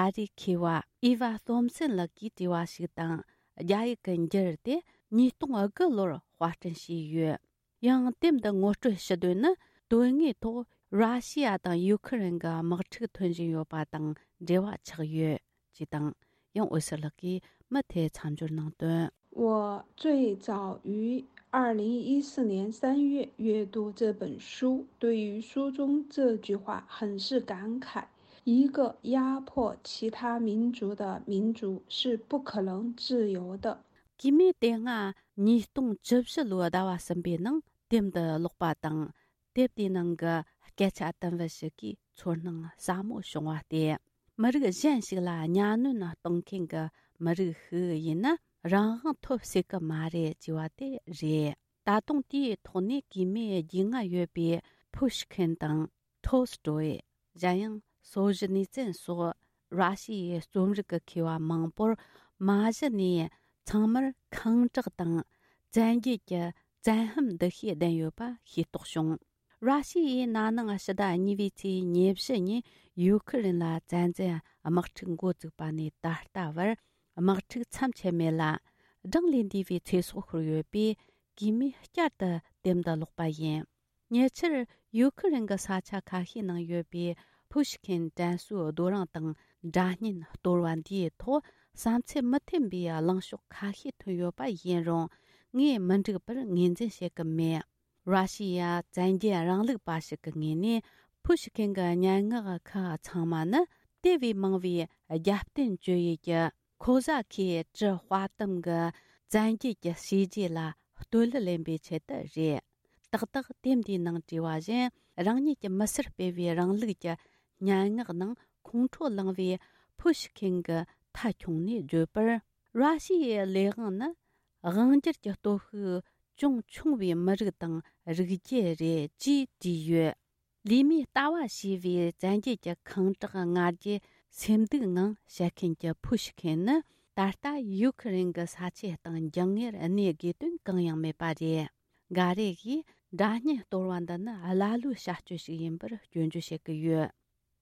ཨ་རིའི་མཁས་པ་ཨི་ཝ་ཐོམ་སན་ལགས་ཀྱིས་བྲིས་པ་ཞིག་དང་། རྒྱ་ཡིག་གི་འགྱུར་དེ་ཉིས་སྟོང་དགུ་ལོར་དཔར་སྐྲུན་བྱས་ཡོད། ཡང་དེབ་འདི་ངོ་སྤྲོད་ཞུ་དོན་ནི། དོན་དངོས་ཐོག་ར་ཤི་ཡ་དང་ཡུ་ཁུ་རེན་གྱི་དམག་འཁྲུག་ཐོན་བཞིན་ཡོད་པ་དང་འབྲེལ་བ་ཆགས་ཡོད་ཅེས་དང་། ཡང་འོད་ཟེར་ལགས་ཀྱིས་མུ་མཐུད་མཚམས་སྦྱོར་གནང་དོན། 我最早于二零一四年三月阅读这本书，对于书中这句话很是感慨：一个压迫其他民族的民族是不可能自由的。 གུས་མོས་དེ་སྔ་ཉིས་སྟོང་བཅུ་བཞི་ལོའི་ཟླ་བ་གསུམ་པའི་ནང་དེབ་འདི་ཀློག་པ་དང་། དེབ་དེའི་ནང་གི་སྐད་ཆ་དུམ་བུ་ཞིག་གིས་ཚོར་སྣང་ཟབ་མོ་བྱུང་བ་སྟེ། མི་རིགས་གཞན་ཞིག་ལ་གཉའ་གནོན་གཏོང་མཁན་གྱི་མི་རིགས་ཤིག་ཡིན་ན། རང་དབང་ཐོབ་སྲིད་ཀྱི་མ་རེད་ཅེས་པ་དེ་རེད། ད་དུང་དེའི་ཐོག་ནས་གུས་མོས་རྒྱུས་མངའ་ཡོད་པའི་ཕུ་ཤི་ཁིན་དང་། ཐོལ་སི་ཏོའི། གཞན་ཡང་སོལ་ཇི་ནི་ཙན་སོགས་ ར་ཤི་ཡའི་རྩོམ་རིག་གི་མཁས་པ་མང་པོར་མ་གཞི་ནས་ཚང་མར་ཁེངས་དྲེགས་དང་བཙན་རྒྱལ་གྱི་བཙན་གཡེམ་འདུ་ཤེས་ལྡན་ཡོད་པ་ཤེས་རྟོགས་བྱུང་། ར་ཤི་ཡའི་ན་ནིང་ཕྱི་ཟླ་གཉིས་པའི་ཚེས་ཉེར་བཞི་ཉིན་ཡུ་ཁུ་རེན་ལ་བཙན་འཛུལ་དམག་འཁྲུག་འགོ་བཙུགས་པ་ནས་ད་ལྟ་བར་དམག་འཁྲུག་མཚམས་ཆད་མེད་ལ། གྲངས་ལས་འདས་པའི་ཚེ་སྲོག་ཤོར་ཡོད་པས། གུས་མོས་བསྐྱར་དུ་དེབ་འདི་ཀློག་པ་ཡིན། ཉེ་ཆར་ཡུ་ཁུ་རེན་གྱི་ས་ཆ་ཁ་ཤས་ནང་ཡོད་པའི་ཕུ་ཤི་ཁེན་དྲན་གསོའི་རྡོ་རིང་དང་སྒྲ་སྙན་གཏོར་བ་འདིའི་ཐོག་བསམ་ཚུལ་མི་མཐུན་པའི་གླེང་ཕྱོགས་ཁ་ཤས་ཐོན་ཡོད་པ་ཡིན་རུང་། ངས་མི་འགྲིག་པར་ངོས་འཛིན་བྱེད་ཀྱི་མེད། ར་ཤི་ཡ་བཙན་རྒྱལ་རིང་ལུགས་པ་ཞིག་གི་ངོས་ནས། ཕུ་ཤི་ཁེན་གྱི་སྙན་ངག་ཁག་ཚང་མ་ནི་དེ་བས་མང་བའི་རྒྱབ་རྟེན་བཅོལ་ཡུལ་གྱི་ཁོ་ཟ་ཁའི་གྲི་དཔའ་གཏུམ་གྱི་བཙན་རྒྱལ་གྱི་བྱས་རྗེས་ལ་བསྟོད་གླུ་ལེན་པའི་ཆེད་དུ་རེད། ཏག་ཏག་དེབ་འདིའི་ནང་བྲིས་པ་བཞིན། རང་ཉིད་ཀྱི་མི་སེར་སྤེལ་བའི་རིང་ལུགས་ཀྱི་སྙན་ངག་ནང་ཁོང་ཁྲོ་ལངས་པའི་ཕུ་ཤི་ཁེན་གྱིས་མཐའ་འཁྱོངས་ནས་བརྗོད་པར། ར་ཤི་ཡའི་ལས་དབང་ནི་དབང་སྒྱུར་གྱི་སྟོབས་ཤུགས་ཅུང་ཆུང་བའི་མི་རིགས་དང་རིགས་རྒྱུད་རེད་ཅེས་བྲིས་ཡོད། ལུས་མེད་ལྟ་བ་ཞེས་པའི་བཙན་རྒྱལ་གྱི་ཁེངས་དྲེགས་ང་རྒྱལ་སེམས་སྡུག་ངང་བཤད་མཁན་གྱི་ཕུ་ཤི་ཁེན་ནི། ད་ལྟ་ཡུ་ཁུ་རེན་གྱི་ས་ཆའི་སྟེང་འགྱིང་ངེར་གནས་དགོས་དོན་གང་ཡང་མེད་པ་རེད། འགའ་རེ་གིས་སྒྲ་སྙན་གཏོར་བ་འདི་ནི་ཀླ་ཀློའི་བྱ་སྤྱོད་ཞིག་ཡིན་པར་སྐྱོན་བརྗོད་བྱེད་ཀྱི་ཡོད།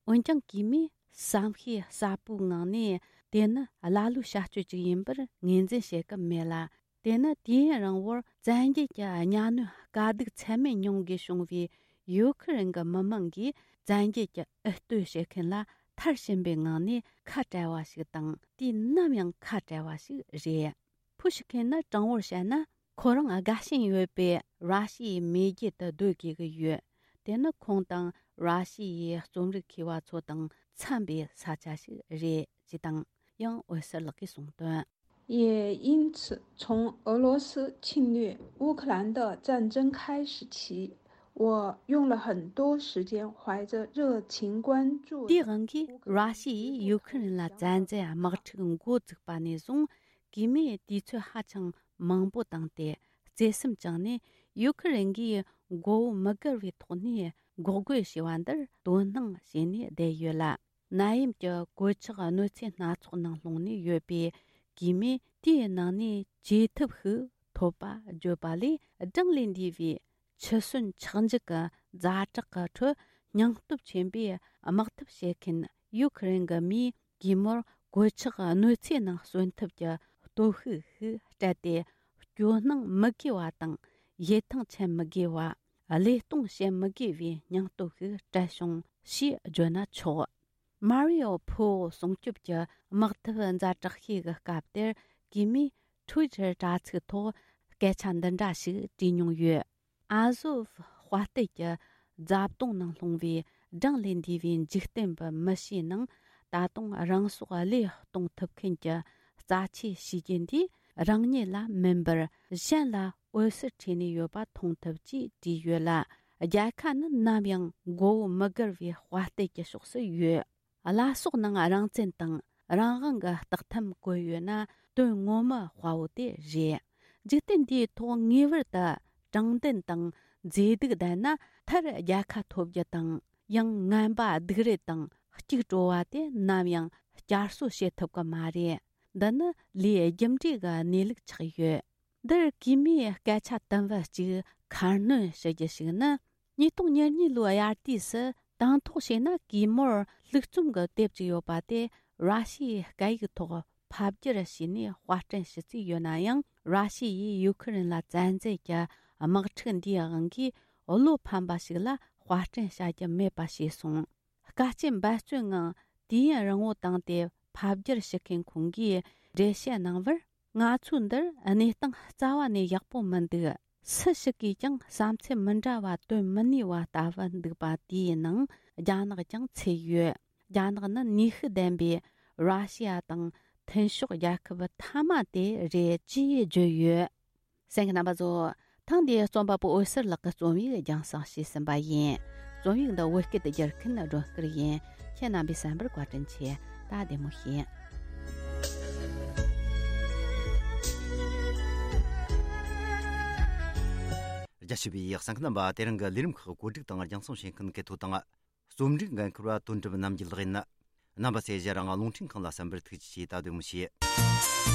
འོན་ཀྱང་། གུས་མོས་བསམ་ཤེས་ཟབ་པོའི་ངང་ནས། དེ་ནི་ཀླ་ཀློའི་བྱ་སྤྱོད་ཅིག་ཡིན་པར་ངོས་འཛིན་བྱེད་ཀྱི་མེད་ལ། དེ་ནི་དུས་ཡུན་རིང་བོར་བཙན་རྒྱལ་གྱི་གཉའ་གནོན་དཀའ་སྡུག་ཚད་མེད་མྱོང་དགོས་བྱུང་བའི་ཡུ་ཁུ་རེན་གྱི་མི་མང་གིས། བཙན་རྒྱལ་གྱི་འུད་བསྟོད་བྱེད་མཁན་ལ་མཐར་ཕྱིན་པའི་ངང་ནས་ཁ་བྲལ་བ་ཞིག་དང་། དུས་ནམ་ཡང་ཁ་བྲལ་བ་ཞིག་རེད། ཕུ་ཤི་ཁེན་ནི་དྲང་བོར་བཤད་ན། ཁོ་རང་དགའ་ཞེན་ཡོད་པའི་ར་ཤི་ཡའི་མེས་རྒྱལ་དུ་སྡོད་དགོས་ཀྱི་ཡོད། དེ་ནི་ཁོང་དང་ར་ཤི་ཡའི་རྩོམ་རིག་མཁས་པ་ཚོ་དང་འཚམ་པའི་ས་ཆ་ཞིག་རེད་ཅེས་དང་། ཡང་འོད་ཟེར་ལགས་ཀྱིས་གསུངས་དོན། 也因此，从俄罗斯侵略乌克兰的战争开始起，我用了很多时间怀着热情关注 དེའི་དབང་གིས། ར་ཤི་ཡས་ཡུ་ཁུ་རེན་ལ་བཙན་འཛུལ་དམག་འཁྲུག་འགོ་བཙུགས་པ་ནས་བཟུང་། གུས་མོས་དུས་ཚོད་ཧ་ཅང་མང་པོ་བཏང་སྟེ། བརྩེ་སེམས་བཅངས་ནས། ཡུ་ཁུ་རེན་གྱིས་མགོ་བོ་མི་སྒུར་བའི་ཐོག་ནས་འགོག་རྒོལ་བྱས་པ་འདིར་དོ་སྣང་བྱས་ནས་བསྡད་ཡོད་ལ། ནད་ཡམས་ཀྱི་གོད་ཆག་གནོད་འཚེ་སྣ་ཚོགས་ནང་ལྷུང་ནས་ཡོད་པའི་གུས་མོས། དེའི་ནང་ནས་བཅོས་ཐབས་ཤིག་ཐོབ་པ་བརྗོད་པ་ལས། གྲངས་ལས་འདས་པའི་འཆི་གསོན་ཆག་འཇིག་གི་ཛ་དྲག་གི་ཁྲོད། སྙིང་སྟོབས་ཆེན་པོས་དམག་འཐབ་བྱེད་མཁན་ཡུ་ཁུ་རེན་གྱི་མིས། གུས་མོར་གོད་ཆག་གནོད་འཚེ་ནང་གསོན་ཐབས་ཀྱི་སྟོབས་ཤུགས་ཤིག་སྤྲད་དེ། སྐྱོ་སྣང་མི་དགོས་པ་དང་། ཡིད་ཐང་ཆད་མི་དགོས་པ། བློས་གཏོང་བྱེད་མི་དགོས་པའི་སྙིང་སྟོབས་ཤིག་སྤྲད་བྱུང་ཞེས་བརྗོད་ན་ཆོག། མ་རི་ཨོ་ཕོ་སྲུང་སྐྱོབ་ཀྱི་དམག་འཐབ་ཛ་དྲག་ཤོས་ཀྱི་སྐབས་དེར། གུས་མོས་ཊུ་ཝི་ཊར་དྲ་ཚིགས་ཐོག་སྐད་ཆ་འདི་འདྲ་ཞིག་བྲིས་མྱོང་ཡོད། ཨ་ཟོབ་དཔའ་རྟུལ་གྱི་རྫ་བརྡུངས་ནང་ལྷུང་བའི་གྲངས་ལས་འདས་པའི་འཇིག་རྟེན་པའི་མི་ཞིག་ནང་། ད་དུང་རང་སྲོག་བློས་གཏོང་ཐུབ་མཁན་གྱི་རྩ་ཆེའི་བྱས་རྗེས་འདིས། རང་ཉིད་ལ་མིན་པར་གཞན་ལ་འོད་ཟེར་འཕྲོས་ནས་ཡོད་པ་མཐོང་ཐུབ་ཅེས་བྲིས་ཡོད་ལ། རྒྱལ་ཁ་ནི་ནམ་ཡང་མགོ་བོ་མི་སྒུར་བའི་དཔའ་རྟུལ་གྱི་ཕྱོགས་སུ་ཡོད། བླ་སྲོག་ནང་རང་བཙན་དང་རང་དབང་གི་རྟགས་ཐམ་བཀོད་ཡོད་ན། དོན་ངོ་མ་དཔའ་བོ་དེ་རེད། འཇིག་རྟེན་འདིའི་ཐོག་ངེས་པར་དུ་དྲང་བདེན་དང་མཛེས་སྡུག་ལྡན་ན། མཐར་རྒྱལ་ཁ་ཐོབ་རྒྱུ་དང་། ཡང་ངན་པ་སྡིག་རུས་དང་གཅིག་གྲོལ་བ་དེ་ནམ་ཡང་བསྐྱར་གསོ་བྱེད་ཐུབ་ཀྱི་མ་རེད། འདི་ནི་ལས་རྒྱུ་འབྲས་ཀྱི་གནས་ལུགས་ཆགས་ཡོད། འདིར་གུས་མོས་སྐད་ཆ་དུམ་བུ་གཅིག་ཁ་སྣོན་ཞུ་རྒྱུ་ཞིག་ནི། ཉིས་སྟོང་ཉེར་གཉིས་ལོའི་དབྱར་དུས་སུ་དང་ཐོག་བྱས་ན། གུས་མོར་ལྷུག་རྩོམ་གྱི་དེབ་ཅིག་ཡོད་པ་དེ་ར་ཤི་ཡའི་སྐད་ཡིག་ཐོག་ཕབ་བསྒྱུར་བྱས་ནས་དཔར་སྐྲུན་ཞུ་རྩིས་ཡོད་ན་ཡང་། ར་ཤི་ཡས་ཡུ་ཁུ་རེན་ལ་བཙན་འཛུལ་གྱི་དམག་འཁྲུག་འདིའི་དབང་གིས་བློ་ཕམ་པ་ཞིག་ལ་དཔར་སྐྲུན་བྱ་རྒྱུ་མེད་པ་བྱས་སོང་། དཀའ་སྤྱད་འབད་བརྩོན་ངང་དུས་ཡུན་རིང་བོ་བཏང་སྟེ་ཕབ་བསྒྱུར་ཞུ་མཁན་ཁོང་གིས་འགྲེལ་བཤད་གནང་བར། ང་ཚོས་འདིར་གནས་སྟངས་རྩ་བ་ནས་ཡག་པོ་མི་འདུག། སུ་ཞིག་གིས་ཀྱང་བསམ་ཚུལ་མི་འདྲ་བ་བཏོན་མི་ནུས་པ་ལྟ་བུ་འདུག་པ་དེའི་ནང་རྒྱ་ནག་ཀྱང་ཚུད་ཡོད། རྒྱ་ནག་ནི་ནུས་ཤུགས་ལྡན་པའི་ར་ཤི་ཡ་དང་མཐུན་ཕྱོགས་རྒྱལ་ཁབ་མཐའ་མ་དེ་རེད་ཅེས་བརྗོད་ཡོད། གསན་མཁན་རྣམ་པ་ཚོ། ཐེངས་འདིའི་རྩོམ་པ་པོ་འོད་ཟེར་ལགས་ཀྱི་རྩོམ་ཡིག་རྒྱང་བསྲིངས་བྱས་ཟིན་པ་ཡིན། རྩོམ་ཡིག་འདི་བོད་སྐད་དུ་བསྒྱུར་མཁན་སྒྲོན་སྐུར་ཡིན། ཁྱེད་རྣམ་པས་གསན་པར་བཀའ་དྲིན་ཆེ། ད་བདེ་མོ་བྱོས། རྒྱ་ཆེ་བའི་གསན་མཁན་རྣམ་པ། དེ་རིང་གི་ལས་རིམ་ཁག་བཀོད་སྒྲིག་དང་རྒྱང་སྲིང་བྱེད་མཁན་གལ་ཐོ་དང་། རྩོམ་སྒྲིག་འགན་འཁུར་བ་དོན་གྲུབ་རྣམ་རྒྱལ་ལགས་ཡིན། རྣམ་པ་ཚོས་གཞན་རང་རླུང་འཕྲིན་ཁང་ལ་གསན་པར་ཐུགས་རྗེ་ཆེ། ད་དུ་མུ་ཤེས།